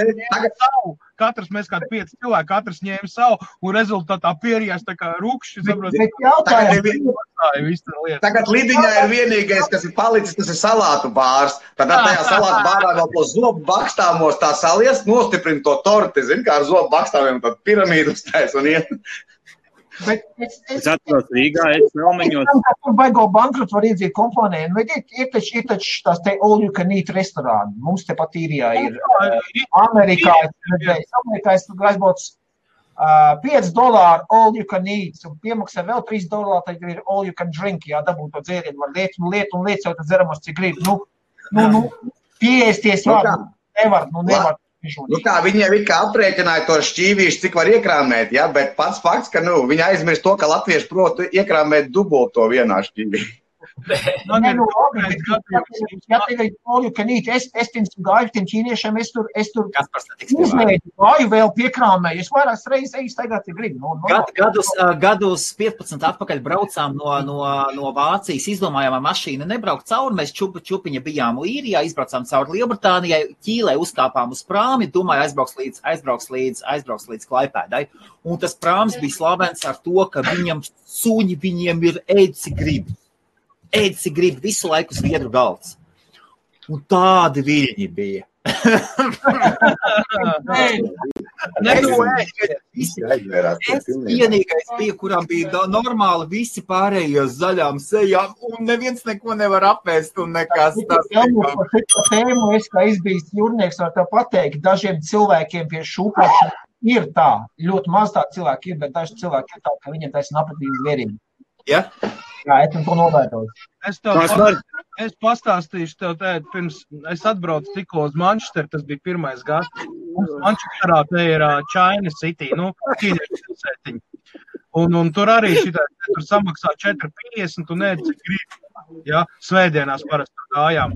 mēs kādi 5 cilvēki, katrs ņēma savu, un rezultātā pierījās tā kā rukšķi. Tagad Lidiņā ir vienīgais, kas ir palicis, tas ir salātu bārs. Tad tajā salātu bārā vēl to zobu bakstāmos tā salies, nostiprina to torti, zin, kā ar zobu bakstāmiem, tad piramīdu uztais un iet. Bet es atceros Rīgā, es Melmeņos. Tur baigo bankrotu var iedzīt kompāniju. Bet ir taču tās te all you can eat restorāni. Mums te pat īrijā ir Amerikā. Es tur aizbaucu $5 all you can eat. Un piemaksā vēl $3, tad ir all you can drink. Jā, dabūt to dzērienu. Var liet jau tad dzeramos, cik grib. Pieēsties var. Nevar. Tā viņiem ir kā aprēķināja to šķīvīšu, cik var iekrāmēt, ja? Bet pats fakts, ka viņi aizmirst to, ka latvieši protu iekrāmēt dubult to vienā šķīvī. Es gāju tiem ķīniešiem, es tur uzmēģu, gāju vēl piekrāmēju, es vairākas reizes eju staigāt, ja gribu. Gadus 15 atpakaļ braucām no Vācijas, izdomājām ar mašīnu nebraukt cauri, mēs čupiņa bijām Īrijā, izbraucām cauri Lielbritānijai, Ķīlē uzkāpām uz prāmi, domāju aizbrauks līdz Klaipēdai, un tas prāms bija slavens ar to, ka viņiem ir ēdzi grib visu laiku zviedru galds. Un tādi viļņi bija. Es vienīgais bija, kuram bija normāli visi pārējie zaļām sejām, un neviens neko nevar apēst, un nekas tas. Tēmu es, kā izbijis jūrnieks, var tā pateikt, dažiem cilvēkiem pie šūpošana ir tā, ļoti maz tā cilvēki ir, bet daži cilvēki ir tā, ka viņiem taisn apatīgi zvierīgi. Ja? Jā, esmu to novērtojis. Es pastāstīšu tev tēt, pirms es atbraucu tikko uz Manchesteru, tas bija pirmais gads. Manchesterā te ir China City, ķīniešu pilsētiņa. Un tur arī tur samaksā 4,50 un ēd, cik grib. Ja? Svētdienās parasti gājām.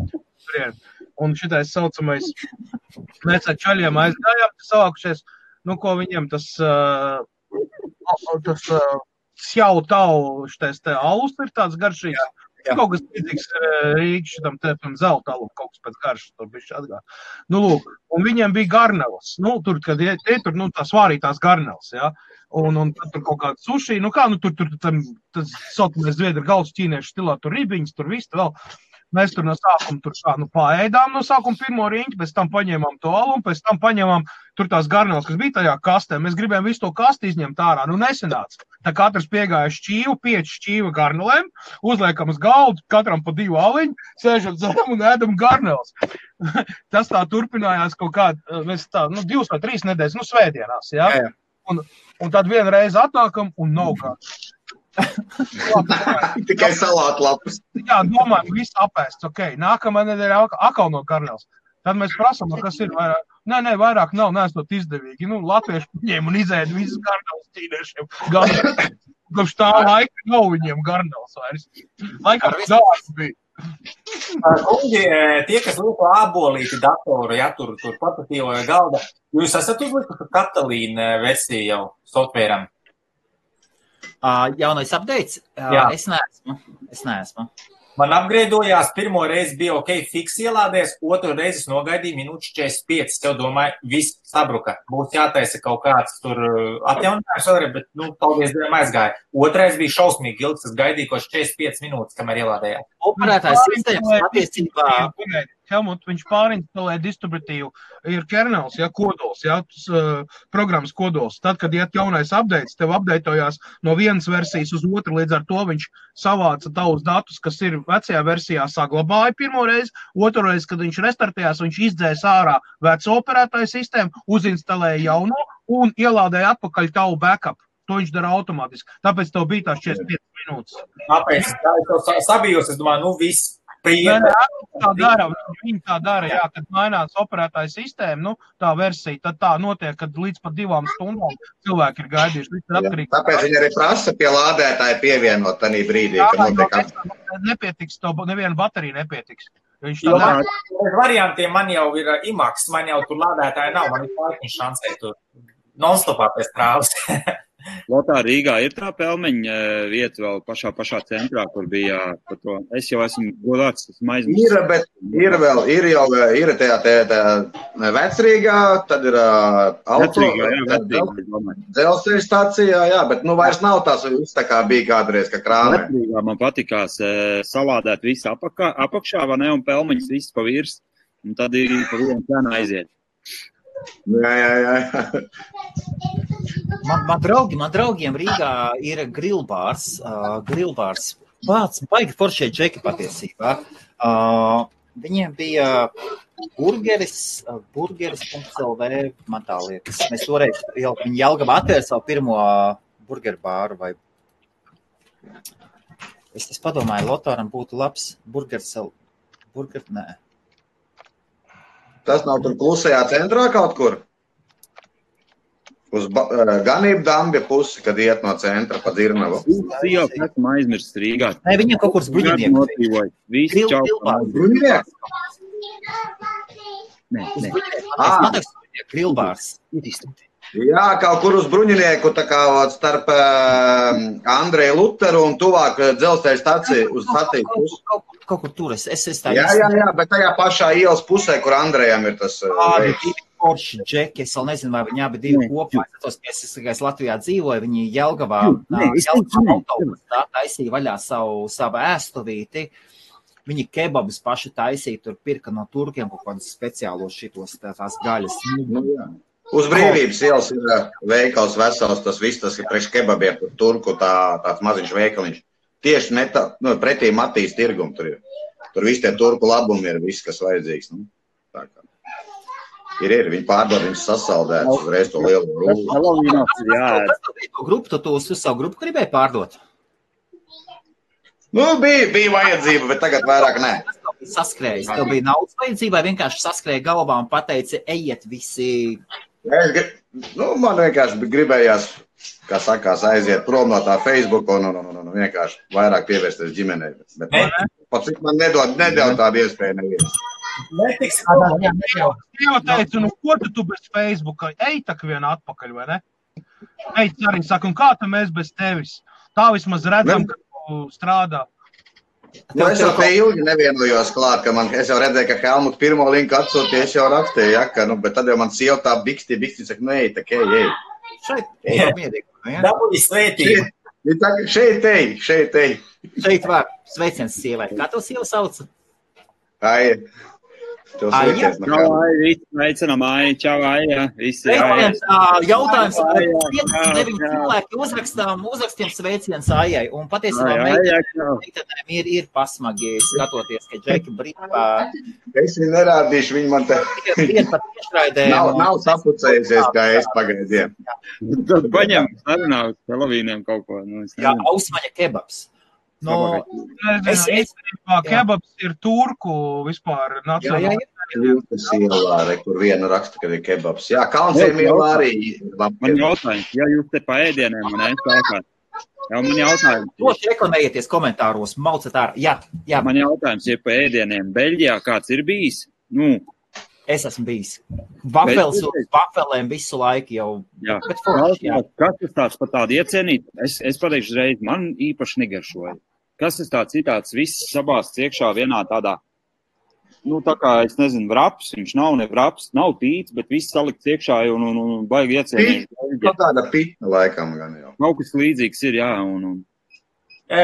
Un šitais saucamais, mēs ar čaļiem aizgājām, savākušies, ko viņiem tas Sjau tau šitais te alus ir tāds garšīgs. Kaut kas līdzīgs Rīgas šitam tēpam zelta alu, kaut kas pēc garšas, tur bišķi atgāt. Lūk, un viņiem bija garneles. Tur, kad tur, tās vārītās garneles, ja. Un tad tur kaut kāda suši, tas saucamais zviedru galvas ķīniešu stilā, tur ribiņas, tur viss, vēl. Mēs tur no sākuma paēdām no sākuma pirmo riņķi, pēc tam paņēmām to alu un pēc tam paņēmām tur tās garneles, kas bija tajā kastē. Mēs gribējām visu to kasti izņemt ārā, nesanāca. Tā katrs piegāja šķīvu, 5 šķīva garnelēm, uzliekam uz galdu, katram pa 2 aliņu, sēžam dzeram un ēdam garneles. Tas tā turpinājās kaut kādā, mēs 2 vai 3 nedēļas, svētdienās, ja? Un tad vienreiz atnākam un nav kāds. Tikai salātu lapas. Jā, domājam, viss apēsts, nākamā nedēļa atkal no garneles. Tad mēs prasam, kas ir vairāk. Nē, vairāk nav, neesot izdevīgi. Latvieši ņēma un izēda visas garneles ķīniešiem. Kopš tā laika nav viņiem garneles vairs. Laikam zāles bija. Kungi, tie, kas lieto ābolīti datoru, ja, tur portatīvo galda, jūs esat uzlikuši Katalīna versiju jau softvēram? Jaunais updates? Es neesmu. Man upgradeojās, pirmo reizi bija fiks ielādies, otru reizi nogaidīju minūtes 45. Tev domāju, viss sabruka. Būs jātaisa kaut kāds tur atjauninājums vēlreiz, bet, paldies Dievam aizgāja. Otrais bija šausmīgi ilgs, es gaidīju kaut 45 minūtes, kamēr ielādējās. Operētājs sistēmas attiecībā. Helmut, viņš pārinstalē distributīvu, ir kernels, kodols, programmas kodols. Tad, kad iet jaunais updates, tev updateojās no vienas versijas uz otru, līdz ar to viņš savāca tavus datus, kas ir vecajā versijā saglabāja pirmo reizi, otru reizi, kad viņš restartējās, viņš izdzēs ārā veco operētāju sistēmu, uzinstalēja jauno un ielādēja atpakaļ tavu backup. To viņš dara automātiski. Tāpēc tev bija tās 45 minūtes. Tāpēc, es sabijos, es domāju, viss. Viņi tā dara, kad mainās operētāja sistēma, tā versija, tad tā notiek, kad līdz pat 2 stundām cilvēki ir gaidījuši. Tāpēc viņi arī prasa pie lādētāja pievienot tanī brīdī, kad notiek. Nepietiks, neviena baterija nepietiks. Variantiem man jau ir IMAX, man jau tur lādētāja nav, man ir pārkiņš šansē tur non-stopā pēc trāvas. Lotā Rīgā ir tā pelmeņa vieta vēl pašā centrā, kur bija par to. Es jau esmu godāts, esmu aizmirsis. Ir, bet ir tajā Vecrīgā, tad ir auto, dzelzceļa stācijā, bet vairs nav tās viss tā kā bija kādreiz, ka krāmē. Vecrīgā man patikās salādēt visu apakšā, vai ne, un pelmeņas viss pa virs, un tad ir pa vienu cenu aiziet. Jā. Man draugiem Rīgā ir grillbārs. Pats baigi foršie džeki patiesībā. Viņiem bija burgeris.lv, man tā liekas. Mēs toreiz viņi Jelgavā atvēra savu pirmo burgeru bāru vai... Es padomāju, Lotāram būtu labs nē. Tas nav tur klusajā centrā kaut kur? Uz ganību Dambja pusi, kad iet no centra pa Dzirnavu. Jā, esmu aizmirsts Rīgā. Nē, viņiem kaut kur uz Bruņinieku. Visi čau. Bruņinieks? Nē. Grillbārs. Jā, kaut kur uz Bruņinieku, tā kā starp Andreju Luteru un tuvāk dzelzceļa staciju uz staciju pusi. Kaut kur tur es tā Jā, bet tajā pašā ielas pusē, kur Andrejam ir tas veids. Forši džeki, es vēl nezinu, vai viņi abi divi kopā. Es Latvijā dzīvoju, viņi Jelgavā autobusā taisīja vaļā savu ēstuvīti. Viņi kebabus paši taisīja, tur pirka no turkiem kaut kādus speciālos šitos tās gaļas. Uz Brīvības ielas ir veikals vesels, tas viss, tas ir priekš kebabiem, turku tāds maziņš veikaliņš. Tieši pretī Matīs tirgumu tur ir. Tur visi tie turku labumi ir viss, kas vajadzīgs. Tā kā. Ir, viņi pārdod, viņus sasaldēt, uzreiz to lielu rūlu. Tu uz savu grupu gribēji pārdot? Bija vajadzība, bet tagad vairāk nē. Saskrējis, tev bija naudas vajadzība, vai vienkārši saskrēja galvā un pateici, ejiet visi? Man vienkārši gribējās, kā sakās, aiziet prom no tā Facebook un vienkārši vairāk pievērsties ģimenei. Bet pat cik man nedod tādu iespēju neviens. Jau teicu, ko tu bez Facebooka? Ej tak vien atpakaļ, vai ne? Ej, arī saka, un kā tu mēs bez tevis? Tā vismaz redzam, ka tu strādā. Es jau te ilgi nevienojos klāt, ka es jau redzēju, ka Helmut pirmo linku atsūtīja, es jau rakstīju, bet tad jau man sieva tā biksti, saka, ej, ej. Šeit, mierīgi. Dabūji svētību. Šeit ej. Šeit var sveiciens sievai. Kā to sieva sauca? Aija. Aija, veicinām, Aija, čau, Aija. Jautājums, 5-9 cilvēki uzrakstiem sveiciens Aijai, un patiesībā meitenēm ir pasmagi skatoties, ka Džeki brīvā. Es viņu nerādīšu, viņi man te nav sapucējusies, kā es pagaidiem. Tad paņem sarunāt Helovīniem kaut ko. Jā, Ausmaņa kebabs. Kebabs ir turku vispār nacionāli. Jūtas ielā, kur viena raksta, ka ir kebabs. Jā, Kalnciem ielā arī. Man jautājums, ja jūs te pa ēdieniem, man jautājums. Loši reklamējieties komentāros, maucat ārā. Jā. Man jautājums, ja pa ēdieniem Beļģijā kāds ir bijis? Es esmu bijis. Vafelēm visu laiku jau. Jā. Kas tas tāds par tādu iecienīt? Es pateikšu uzreiz, man īpaši negaršoja. Kas tas tāds viss sabāsts iekšā vienā tādā, tā kā, es nezinu, vraps, viņš nav ne vraps, nav tīts, bet viss salikts iekšā un baigi iecienīt. Tāda pita laikam gan jau. Kaut kas līdzīgs ir, jā.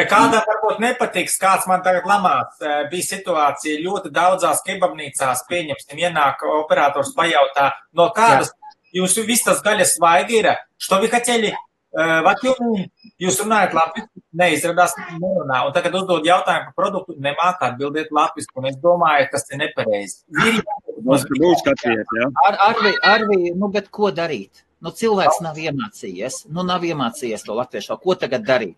Kādam varbūt nepatiks, kāds man tagad lamās. Bija situācija ļoti daudzās kebabnīcās, pieņemsim, ienāk operators pajautā, no kādas jūs viss tas gaļas svaigi ir, što vi хотели, jūs runājat latviski, neizradās nerunā, un tagad uzdod jautājumu par produktu, nemāk atbildiet latviski, un es domāju, kas te nepareizi. Arvi, bet ko darīt? Cilvēks nav iemācījies to latviešu, ko tagad darīt?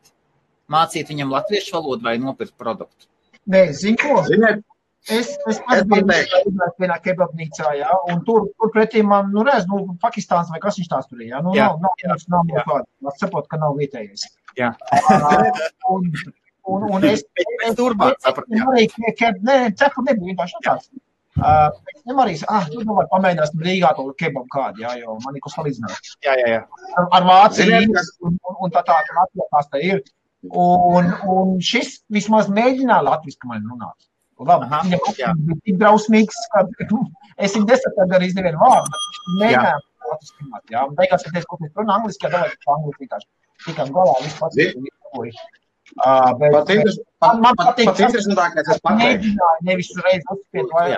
Mācīt viņam latviešu valodu vai nopirkt produktu? Nē, zinu ko? Es biju vienā kebabnīcā, jā, un tur pretī man, Pakistāns vai kas viņš tās tur ir, jā, nav kāda. Es saprotu, ka nav vietējais. Jā. Un es turpāt sapratu, jā. Nē, cepu nebija vienkārši tāds. Es arī, var pamēģināsim Rīgā to kebabu kādu, jā, jo man ir ko salīdzināt. Jā. Ar Vāciju un tā Latvijās tā ir. Un šis vismaz mēģināja latviski man runāt. Labi, viņam bija tik drausmīgs, ka es viņu nesapratu arī nevienu vārdu, bet viņš mēģināja latviski runāt, jā. Un beigās, kad es kaut kas runā angliski, jā, davai angliski vienkārši. Tikām galā, viss pats man patīk, tas mēģināja nevis uzreiz uzspiet vai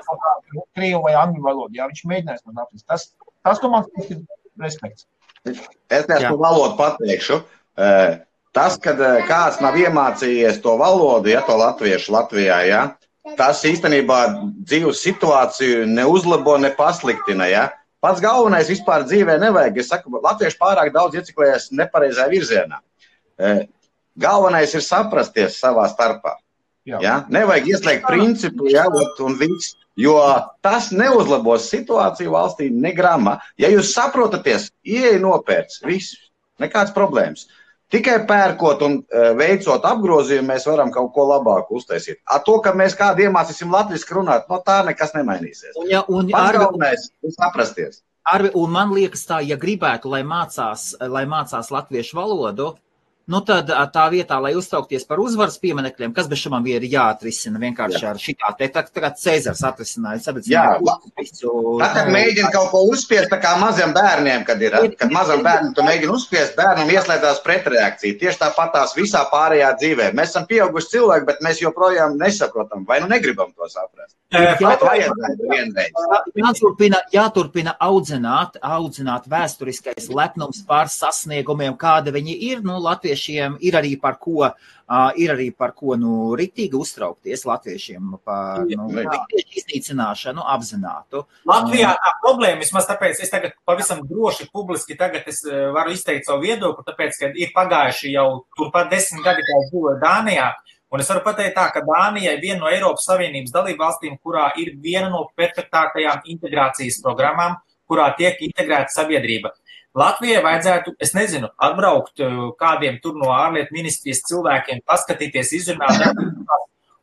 krievu vai angļu valodu, jā, viņš mēģinājis man latviski. Tas, ko man ir respekts. Es to valodu pateikšu. Tas, kad kāds nav iemācījies to valodu, ja to latviešu Latvijā, ja, tas īstenībā dzīves situāciju neuzlabo, ne pasliktina, ja. Pats galvenais vispār dzīvē nevajag. Es saku, latvieši pārāk daudz ieciklējas nepareizā virzienā. Galvenais ir saprasties savā starpā. Ja? Nevajag ieslēgt principu, ja, un viss, jo tas neuzlabos situāciju valstī negrama. Ja jūs saprotaties, ieej nopērts, viss, nekāds problēmas. Tikai pērkot un veicot apgrozījumu, mēs varam kaut ko labāku uztaisīt. To, ka mēs kādu iemācīsim latviski runāt, no tā nekas nemainīsies. Pats galvenais ir saprasties. Un man liekas tā, ja gribētu, lai mācās latviešu valodu, nu tad tā vietā, lai uztraukties par uzvaras pieminekļiem, kas bez šamam ir jāatrisina vienkārši ar šitā te, tagad Cēzars atrisināja. Tad mēģina kaut ko uzspiest, tā kā maziem bērniem, kad mazam bērnam tu mēģini uzspiest, bērnam ieslēdzās pretreakcija. Tieši tāpatās visā pārējā dzīvē. Mēs esam pieauguši cilvēki, bet mēs joprojām nesaprotam, vai nu negribam to saprast. Jāturpina audzināt vēsturiskais lepnums pār sasniegumiem, kāda viņi ir, nu, latviešiem ir arī par ko riktīgi uztraukties latviešiem par riktiešu iznīcināšanu apzinātu. Latvijā tā problēma, vismaz tāpēc es tagad pavisam droši publiski tagad es varu izteikt savu viedokli, tāpēc, ka ir pagājuši jau turpat 10 gadi, kā es dzīvoju Dānijā, un es varu pateikt tā, ka Dānija ir viena no Eiropas Savienības dalībvalstīm, kurā ir viena no perfektākajām integrācijas programmām, kurā tiek integrēta sabiedrība. Latvijai vajadzētu, es nezinu, atbraukt kādiem tur no ārlietu ministrijas cilvēkiem, paskatīties, izrunāt,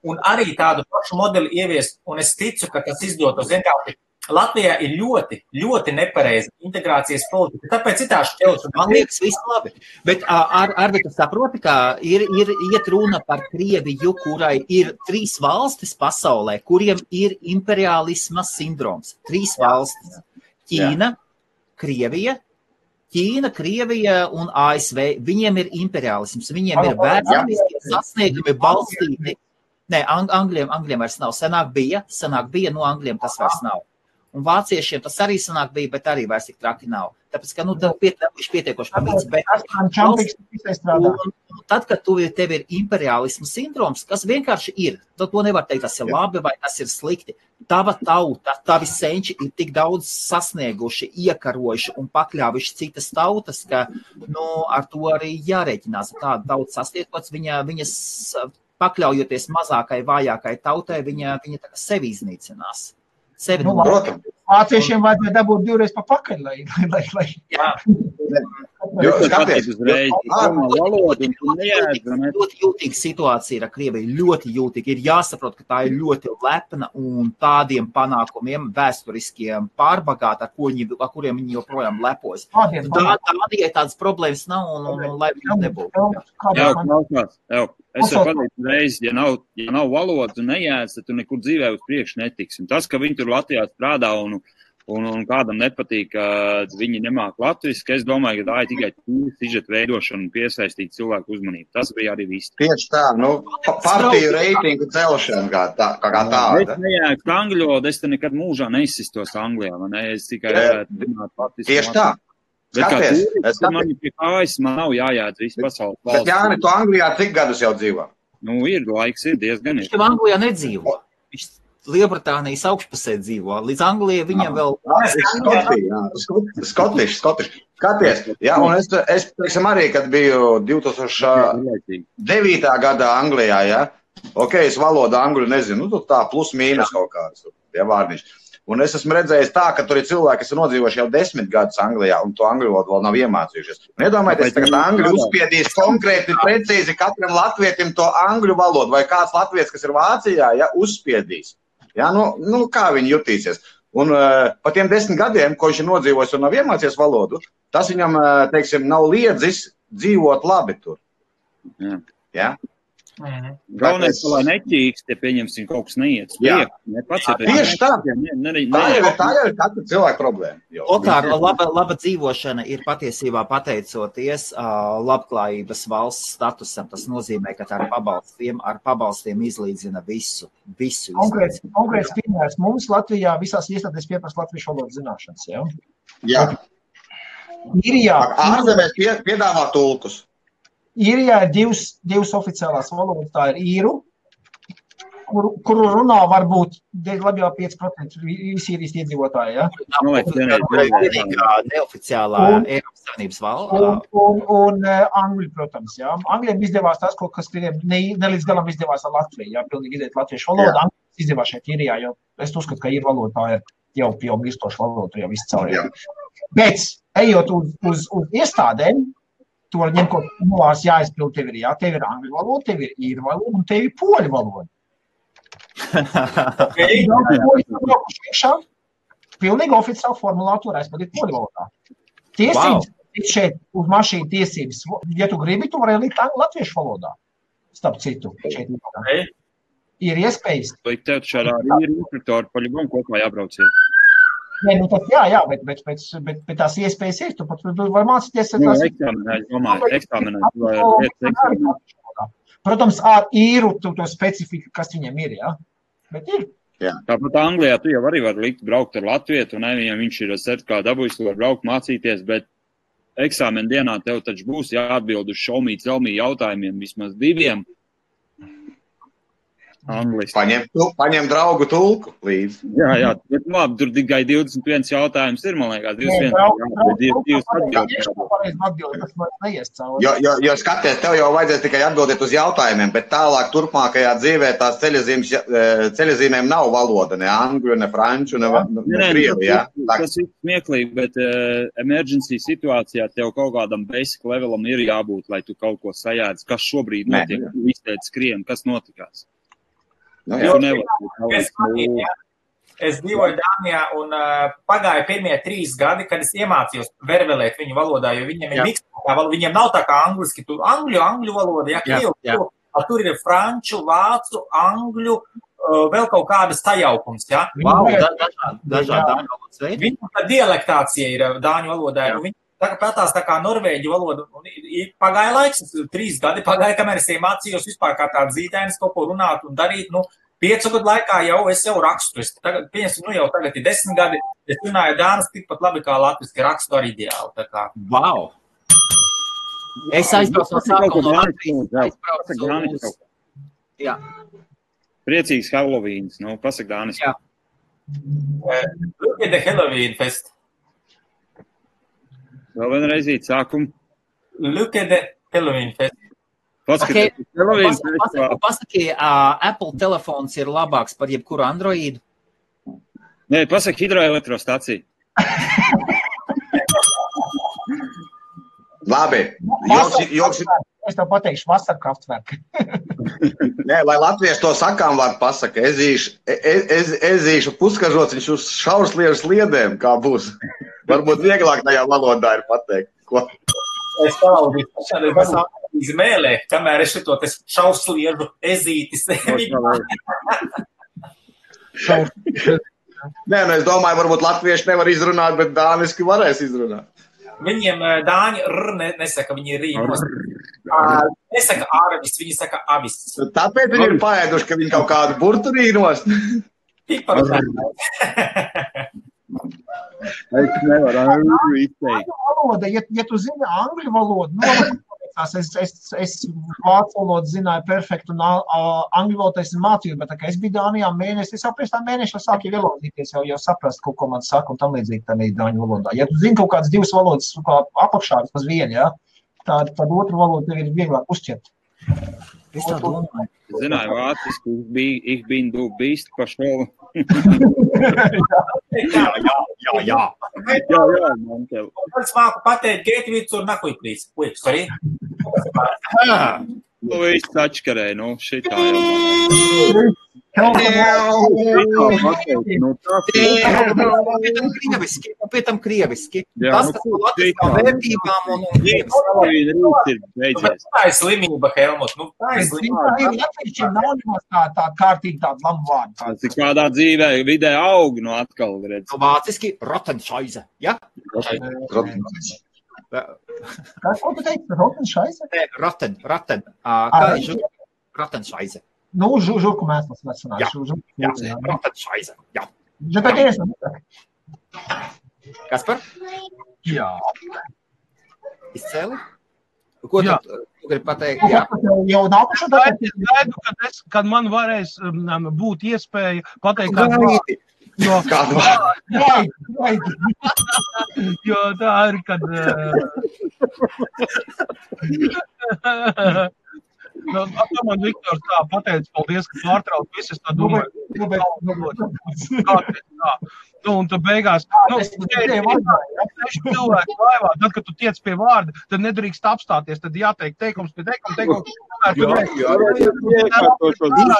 un arī tādu pašu modeli ieviest, un es ticu, ka tas izdotos. Vienkārši Latvijā ir ļoti, ļoti nepareiza integrācijas politika, tāpēc ir tā šķelšana. Man liekas, viss labi, bet Arvi, tu saproti, ka ir iet runa par Krieviju, kurai ir 3 valstis pasaulē, kuriem ir imperialisma sindroms. 3 valstis. Ķīna, Krievija un ASV, viņiem ir imperialisms, viņiem ir vēsturiski sasniegumi balstīti. Nē, Angļiem vairs nav. Senāk bija, no Angļiem tas vairs nav. Un vāciešiem tas arī senāk bija, bet arī vairs tik traki nav. Tāpēc, ka, pietiekoši pamīts, tad, kad tev ir imperialismu sindroms, kas vienkārši ir, tad to nevar teikt, tas ir labi vai tas ir slikti. Tava tauta, tavi senči ir tik daudz sasnieguši, iekarojuši un pakļāvuši citas tautas, ka, ar to arī jārēķinās. Tāda tauta sastiekots, viņas pakļaujoties mazākai, vājākai tautai, viņa tā kā sevi iznīcinās. Vāciešiem vajadzēja dabūt 2 reizes pa pakaļ, lai. Jā. Ļoti jūtīga situācija ir ar Krieviju, ļoti jūtīga. Ir jāsaprot, ka tā ir ļoti lepna un tādiem panākumiem vēsturiskiem pārbagāta, ar kuriem viņi joprojām lepojas. Tādiem tādas problēmas nav un lai viņi nebūtu. Es varu pateikt reizi, ja nav valodas un nejēdz, tad tu nekur dzīvē uz priekšu netiksi. Un tas, ka viņi tur Latvijā strādā un kādam nepatīk, ka viņi nemāk latviski, es domāju, ka tā ir tikai sižeta veidošana un piesaistīt cilvēku uzmanību. Tas bija arī viss. Tieši tā, partiju reitingu celšana kā tāda. Es nejēdzu angļu valodu, es te nekad mūžā neizsistos Anglijā, man es tikai runāt latviski. Tieši tā. Skaties. Man pie kājas, man nav jājādz visu pasaules valsts. Bet Jāni, tu Anglijā cik gadus jau dzīvo? Ir laiks, ir diezgan. Viņš jau Anglijā nedzīvo. Viņš Lielbritānijas augšpusē dzīvo. Līdz Anglijai viņam vēl... Skotiši. Skaties. Jā, un es teiksim arī, kad biju 2009. gadā Anglijā, ja? Ok, es valodu angļu nezinu, tā plus mīnus kaut kāds, ja vārdiņš. Un es esmu redzējis tā, ka tur ir cilvēki, kas ir nodzīvojuši jau 10 gadus Anglijā, un to angļu valodu vēl nav iemācījušies. Un iedomājieties, tagad angļu uzspiedīs konkrēti, precīzi katram latvietim to angļu valodu, vai kāds latvietis, kas ir Vācijā, ja, uzspiedīs. Ja, kā viņi jutīsies. Un pa tiem 10 gadiem, ko viņš ir nodzīvojis un nav iemācījies valodu, tas viņam, teiksim, nav liedzis dzīvot labi tur. Ja? Galvenais, lai neķīks, te pieņemsim kaut kas neiet. Tieši tā. Tā jau ir katra cilvēka problēma. Okār, laba dzīvošana ir patiesībā pateicoties labklājības valsts statusam. Tas nozīmē, ka ar pabalstiem izlīdzina visu. Konkrēts piemērs mums Latvijā visās iestādēs pieprasa latviešu valodas zināšanas, ja? Jā. Ārzemēs piedāvā tulkus. Īrijā ir divas oficiālās valodas, tā ir īru, kuru runā varbūt labi jau 5% visi īrijas iedzīvotāji, ja? Neoficiālā Eiropas Savienības valoda. Un angļu, protams, ja? Angļiem izdevās tas, kas krieviem nelīdz galam izdevās ar Latviju, ja? Pilnīgi iziet latviešu valodu, angļu izdevās šeit īrijā, jo es uzskatu, ka īru valoda tā ir jau mirstoša valoda, jau viss caur. Bet, ejot uz iestādēm, tu var ņemt, ko novās jāizpild tev ir, tev ir angļu valoda, tev ir īru valoda un tev ir poļu valoda. Pilnīgi oficiāli formulāri tur aizpildīt poļu valodā. Tiesības šeit uz mašīnu tiesības, ja tu gribi, tu vari likt latviešu valodā. Starp citu, šeit ir iespējas. Vai tev šādā ir instruktori paļuvam kopā jābrauciet? Nē, nu tad jā, bet tās iespējas ir, tu pat var mācīties. Eksāmenā. Protams, ar īru to specifiku, kas viņam ir, jā. Bet ir. Jā. Tāpat Anglijā tu jau arī vari likt braukt ar latvietu, un viņam viņš ir certifikātu dabūjis, tu var braukt mācīties, bet eksāmena dienā tev taču būs jāatbild uz šaumī jautājumiem, vismaz 2. Angliski. Paņem draugu tulku līdzi. Jā, bet labi, tur tikai 21 jautājums ir, man liekas, 21 atbildi. Jo skaties, tev jau vajadzēs tikai atbildēt uz jautājumiem, bet tālāk turpmākajā dzīvē tās ceļazīmēm nav valoda, ne angļu, ne franču, ne krievu, jā. Tas ir smieklīgi, bet emergency situācijā tev kaut kādam basic levelam ir jābūt, lai tu kaut ko sajēdz, kas šobrīd notiek, izteic skrien, kas notikās. Es dzīvoju Dānijā un pagāja pirmie 3 gadi, kad es iemācījos vervelēt viņu valodā, jo viņiem ir mikstā valoda, viņiem nav tā kā angliski, tur angļu valoda, tur ir franču, vācu, angļu, vēl kaut kādas sajaukums, ja? Dažādi valodas veidi. Viņu dialektācija ir dāņu valodā, un viņi pētās tā kā norvēģu valodu, un pagāja laiks, 3 gadi pagāja, kamēr es iemācījos vispār kā tāds zīdainis kaut ko runāt un darīt, 5 gadu laikā es jau rakstu, tagad ir 10 gadi, es runāju dānis tikpat labi kā latviski, rakstu ar ideālu, tā kā. Wow! Es aizbraucu no sākuma no Latvijas. Jā. Priecīgs Halloweens, pasak dānis. Jā. Look at the Halloween fest. Vēl vienreizīt sākumu. Look at the Halloween fest. Pasaki, Apple telefons ir labāks par jebkuru Androidu? Nē, pasaki hidroelektrostaciju. Labi. Es tev pateikšu vasarkraftverku. Nē, lai latvieši to sakām var pasaka, ezīšu puskažots, viņš uz šaursliežu sliedēm, kā būs. Varbūt vieglāk tajā valodā ir pateikt. Ko? Es palaudīju šādu izmēlē, kamēr es šito šaursliežu ezītis. Nē, es domāju, varbūt latvieši nevar izrunāt, bet dāniski varēs izrunāt. Viņiem dāņi nesaka, viņi ir rīmos. Nesaka ārvis, viņi saka avis. Tāpēc viņi ir paēduši, ka viņi kaut kādu burtu rīnos. Tikpat. Es nevaru izteikt. Ja tu zini angļu valodu, es vācu valodu zināju perfektu un angļu valodu es mācīju, bet es biju Dānijā mēnesi, es jau pēc tā mēneša sāku ielodīties, jau saprast, ko man saka un tam līdzīgi tā dāņu valodā. Ja tu zini kaut kādas 2 valodas apakšā, vismaz viena, ja, tad otru valodu tev ir vieglāk uzķert. Es tā domāju. Zināju vāciski, ich bin du bist pašol. Jā. Man tev. Es māku pateikt, Gētvīts un nakuj, please. Ui, sorry. Viss atškarē, šitā jau. Pēc tam krieviski. Tas latviskām vērtībām un tā ir slimība, Helmut. Tā ir slimība. Latviešiem nav nemaz tā kārtīgi tāda lamu vārdu. Tas ir kādā dzīvē, vidē aug, atkal redz. Vāciski Rotenšaize, ja? Ko tu teici? Rotenšaize? Roten. Kā ir Rotenšaize? Žurku mēslas vecināt. Jā, Rotenšaize, jā. Kaspar? Jā. Izcēli? Ko tu gribi pateikt? Jā. Jau nākušo gaidu, kad man varēs būt iespēja pateikt kādu vārdu. Jo tā ir, kad... Man Viktors tā pateica, paldies, ka pārtrauc visu, es tā domāju. Un tu beigās, cilvēki laivā, tad, kad tu tiec pie vārda, tad nedrīkst apstāties, tad jāteikt teikums pie teikums.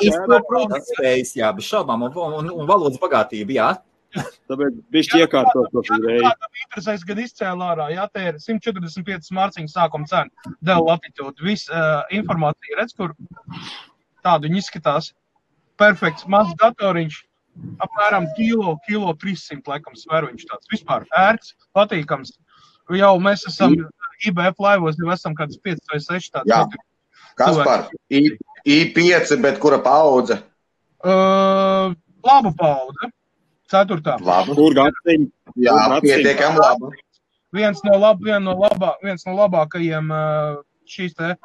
Izproprotams spējas, jā, bez šaubām, un valodas bagātība, jā. Tāpēc bišķi iekārtot to reizi. Kādam interesēs, gan izcēla ārā, jā, te ir 145 mārciņu sākuma cena, Dell Latitude. Viss informācija, redz, kur tādu viņi izskatās. Perfekts, mazs datoriņš, apmēram kilo 300 laikam sveru viņš tāds. Vispār ērts, patīkams. Jau mēs esam IBF laivos, jau esam kāds 5 vai 6 tāds. Jā, Kaspar, I5, bet kura paudze? Laba paudze. 4. Labu. Kur gadsiņu? Jā, pietiekam labu. Viens no labākajiem šīs te,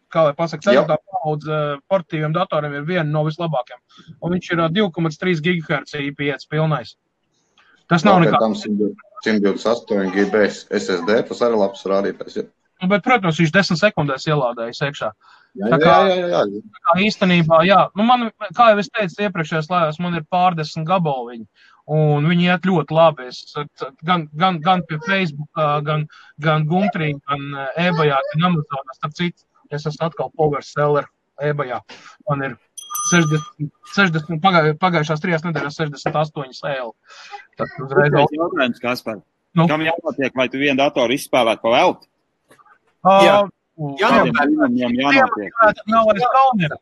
kā lai pasaka, 4. paudze portatīviem datoriem ir viena no vislabākajiem. Un viņš ir 2,3 GHz I5 pilnais. Tas nav nekā. Tam 128 GB SSD, tas arī labs rādītājs. Bet, protams, viņš 10 sekundēs ielādējas iekšā. Jā. Tā kā īstenībā, jā. Nu, man, kā jau es teicu iepriekšējās laivās, man ir pārdesmit gabaliņi. Un viņi iet ļoti labi. Es gan pie Facebookā, gan Gumtrī, gan eBayā, gan Amazonā. Starp citu, es esmu atkal power seller eBayā. Man ir 60 pagājušās 3 nedēļas 68 eiro. Tad uzreiz jautājums, Kaspar. Kam jānotiek, vai tu vienu datoru izspēlēt pa velti? Jānotiek. Nav vairs kaunera.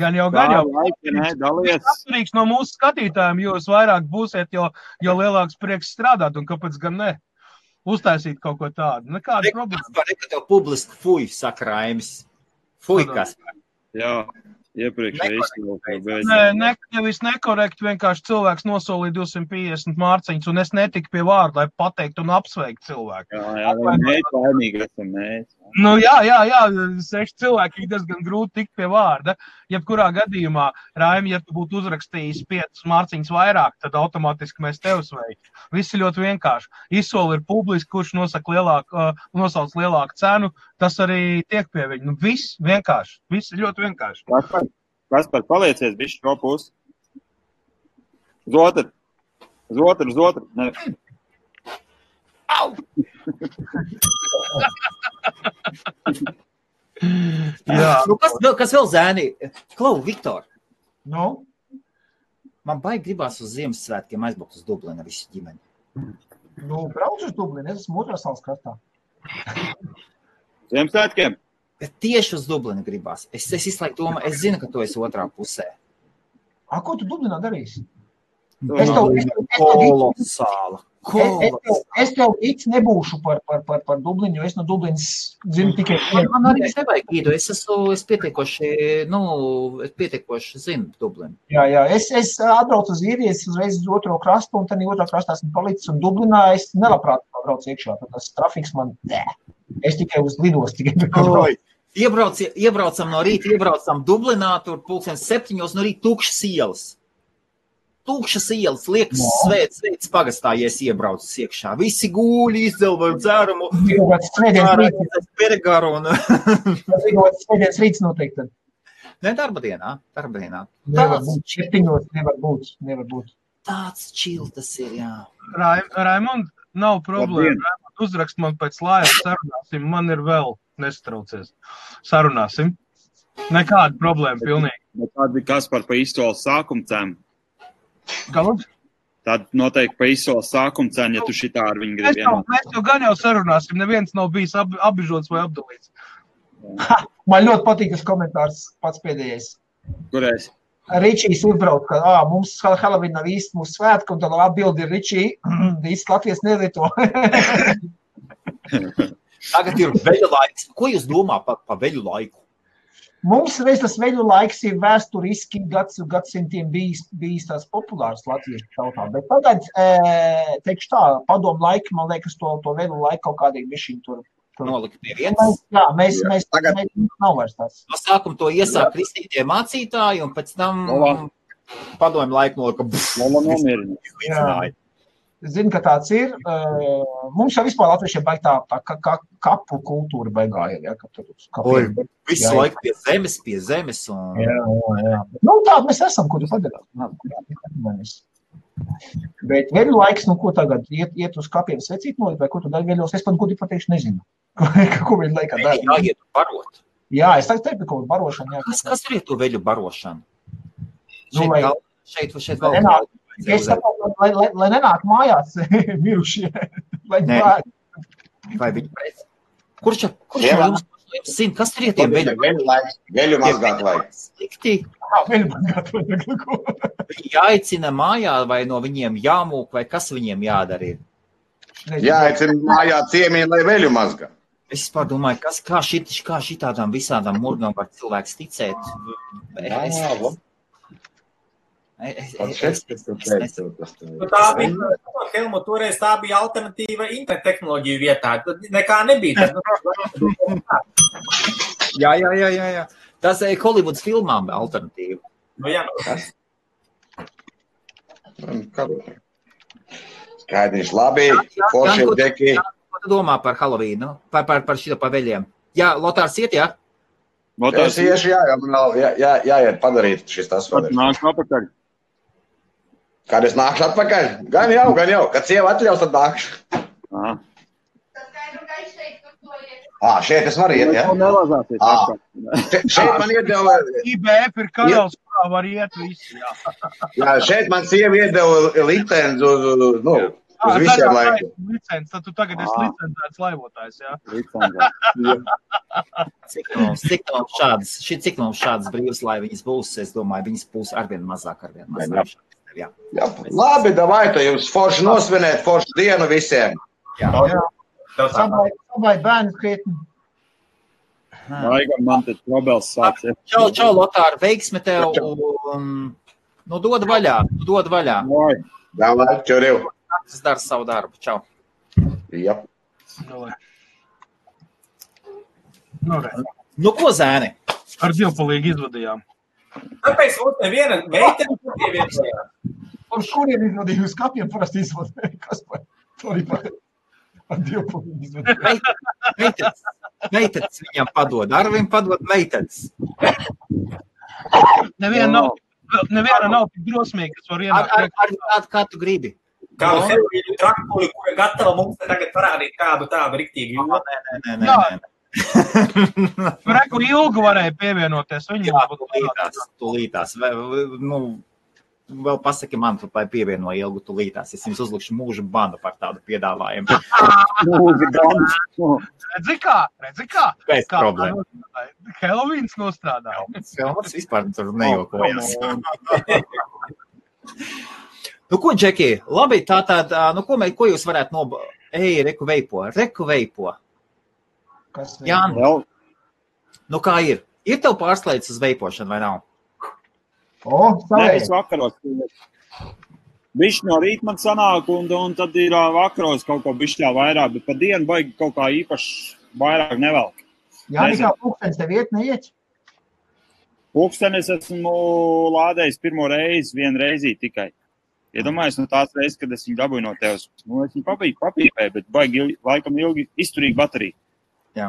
Gan jau. Atkarīgs no mūsu skatītājiem, jo jūs vairāk būsiet, jo lielāks prieks strādāt, un kāpēc gan ne? Uztaisīt kaut ko tādu. Nekāda problēma. Kaspar, tev publiski fuj, saka Raimis. Fuj, Kaspar. Jā. Iepriekš nevis nekorekti, vienkārši cilvēks nosolīja 250 mārciņas, un es netiku pie vārda, lai pateikt un apsveikt cilvēku. Jā, mēs laimīgi esam mēs. Nu, jā, 6 cilvēki ir diezgan grūti tikt pie vārda. Jebkurā gadījumā, Raimi, ja tu būtu uzrakstījis 5 mārciņas vairāk, tad automātiski mēs tev sveiktu. Viss ir ļoti vienkārši. Izsoli ir publiski, kurš nosauc lielāku cenu, tas arī tiek pie viņa. Nu, viss vienkārši. Viss ir ļoti vienkārši. Kaspar, paliecies bišķi šo pusi. Uz otru. Ne. Au! Jā. Nu, kas vēl zēni? Klau, Viktor. Nu? Man baigi gribās uz Ziemassvētkiem aizbraukt uz Dublinu visu ģimeni. Nu, brauc uz Dublinu, es esmu otrā salas kartā. Ziemassvētkiem? Bet tieši uz Dublinu gribās. Es izslēgu domāju, es zinu, ka tu esi otrā pusē. Ko tu Dublinā darīsi? Kolosāla. Es tev īsti nebūšu par Dublinu, jo es no Dublinas zinu tikai... Man arī nevajag īdu, es pietiekoši zinu Dublinu. Jā, es atbraucu uz īriju, es uzreiz uz otro krastu, un tad otrā krastā esmu palicis, un Dublinā es nelabprāt braucu iekšā, tad tas trafiks man, es tikai uz lidos tikai. Iebraucam no rīta, iebraucam Dublinā, tur 7:00 no rīta tukšas ielas. Tukšas ielas, liekas svēts pagastā, ja es iebraucu iekšā. Visi gūļi izdzel vai dzērumu. Peregaru un... Svētdienas rīts noteikti tad. Ne, darba dienā. Nevar būt. Tāds čil tas ir, jā. Raimond, nav problēma. Raimond, uzrakst man pēc laivas, sarunāsim. Man ir vēl nestraucies. Sarunāsim. Nekāda problēma, pilnīgi. Tāda Kaspar pa izsoles sākuma cenu. Galud? Tad noteikti pa izsoles sākuma cenu, ja tu šitā ar viņu gribi vienot. Mēs jau gan jau sarunāsim, neviens nav bijis apbižots vai apdalīts. Man ļoti patīk tas komentārs pats pēdējais. Kurais? Ričijs uzbrauc, ka mums Halloween nav īsti mūsu svētku, un tad atbildi ir Ričī, īsti Latvijas nelieto. Tagad ir veļu laiks. Ko jūs domā pa veļu laiku? Mums reiz tas veļu laiks ir vēsturiski gadsimtiem bijis tās populārs latviešu tautā, bet tagad, teikšu tā, padomu laiki, man liekas, to veļu laiku kaut kādīgi bišķiņ tur. Nolikt pie vietas. Jā, mēs nav vairs tās. No sākuma to iesāk kristītie mācītāji, un pēc tam padomu laiku nolika. Jā. Zinu, ka tāds ir. Mums jau vispār latviešiem baig tā kapu kultūra baigā ir. Ja, visu laiku pie zemes. Un... Jā. Nu, tā mēs esam, ko tu padarāt. Bet veļu laiks, nu, ko tagad? Iet uz kapiem svecīt nolikt, vai ko tu dari veļos? Es pat gudīgi pateikšu nezinu. Ko veļu laikā dara? Jāiet barot. Jā, es teiktu, ko barošana. Jā. Kas ir to veļu barošana? Nu, Šeit vēl. Es saprotu, lai nenāk mājās mirušie. Vai viņi pēc? Kurš jums zina, kas ir tiem veļu? Veļu mazgāt vajag. Slikti. Veļu mazgāt vajag. Jāicina mājā vai no viņiem jāmūk, vai kas viņiem jādara ir? Jāicina mājā ciemieni, lai veļu mazgā. Es domāju, kā šitādām visādām murgām var cilvēks ticēt? Tā bija, Helmut, toreiz tā bija alternatīva internet tehnoloģiju vietā. Tad nekā nebija. Jā. Tas ir Hollywoods filmām alternatīva. Nu, jā. Skaidrs, labi. Forši ir deki. Ko tu domā par Halloween? Par šito pa veļiem? Jā, Lotārs iet, jā? Es iešu, jāiet padarīt šis tas. Nākšu apakaļ. Kad es nākšu atpakaļ? Gan jau. Kad sieva atļaus, tad nākšu. Šeit es varu iet, ja? Šeit man iedeva... IBF ir kanāls, kurā var iet visi, jā. Jā, šeit man sieva iedeva licenci uz visiem laikiem. Licenci, tad tu tagad esi licencēts laivotājs, jā? Cik mums šādas brīvas laivas būs, es domāju, viņas būs arvien mazāk. Jā. Labi, davai, tu jums forši nosvinēt, forši dienu visiem. Jā. Sabai bērni krietni. Laikam man tad probels sāks. Čau, Lotār, veiksme tev. Nu, dod vaļā. Davai, čuriv. Tas dara savu darbu. Čau. Jā. Nu, ko zēni? Ar divpalīgi izvadījām. Tāpēc mums neviena meitene pievienojās. Un kuriem izvadīja uz kapiem parasti izvadīja? Kas par to arī par divpalīgi izvadīja? Meitenes viņam padod. Arvim padod meitenes. Neviena nav tik drosmīga, kas var ienākt. Kā tu gribi? Kādu Helvīnu traktori, kura gatava mums tagad parādīt kādu tādu riktīgi jūtu. Nē. Reku ilgu varēja pievienoties. Tūlītās. Vēl pasaki man, tu pievieno ilgu tūlītās. Es jums uzlikšu mūžu banu par tādu piedāvājumu. Redzi kā? Pēc problēma. Helovīns nostrādā. Helmuts vispār tur nejokojas. Nu, ko, Džeki? Labi, ko jūs varētu reku veipo. Jāni, nu kā ir? Ir tev pārslēdz uz veipošanu vai nav? Nē, es vakaros. Bišķi no rīt man sanāk, un tad ir vakaros kaut ko bišķā vairāk, bet pa dienu baigi kaut kā īpaši vairāk nevelk. Jāni, kā pulkstenis tev neiet? Pulkstenis esmu lādējis pirmo reizi, vienu reizi tikai. Iedomājies no tās reizes, kad es viņu dabūju no tevs. Es viņu papīpēju, bet baigi laikam ilgi izturīgi bateriju. Jā.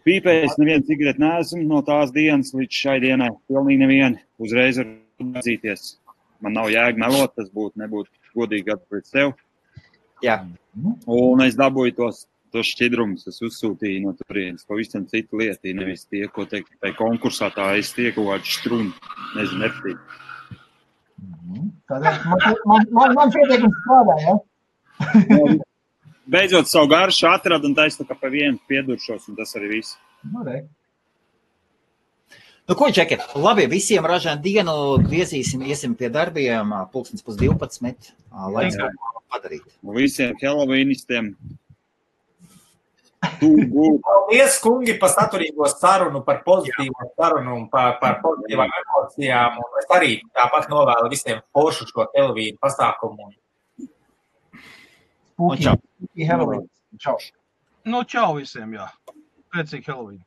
Pīpējis nevienu cigareti neesmu no tās dienas līdz šai dienai. Pilnīgi nevienu. Uzreiz var atzīties. Man nav jēga melot, tas nebūtu godīgi pret sev. Jā. Un es dabūju tos šķidrumus, es uzsūtīju no turienes. Pavisam citu lietu, nevis tie, ko teikt, tai konkursā tā es tieku vārdu štrunu. Nezinu, nepatīt. Man pieteikums strādā, ja? Beidzot savu garšu atradu un taisnu, ka pa vienu pieduršos, un tas arī viss. Nu, ko, Džeki? Labi, visiem ražēn dienu iesim pie darbiem, 11:12, lai kaut ko padarīt. Visiem helovīnistiem Paldies, kungi, par saturīgo sarunu, par pozitīvo sarunu un par pozitīvām emocijām. Un es arī tāpat novēlu visiem foršu šo Helovīnu pasākumu. Spooky Halloween. Čau. Nu, čau visiem, jā. Pēcīgi Helovīnu.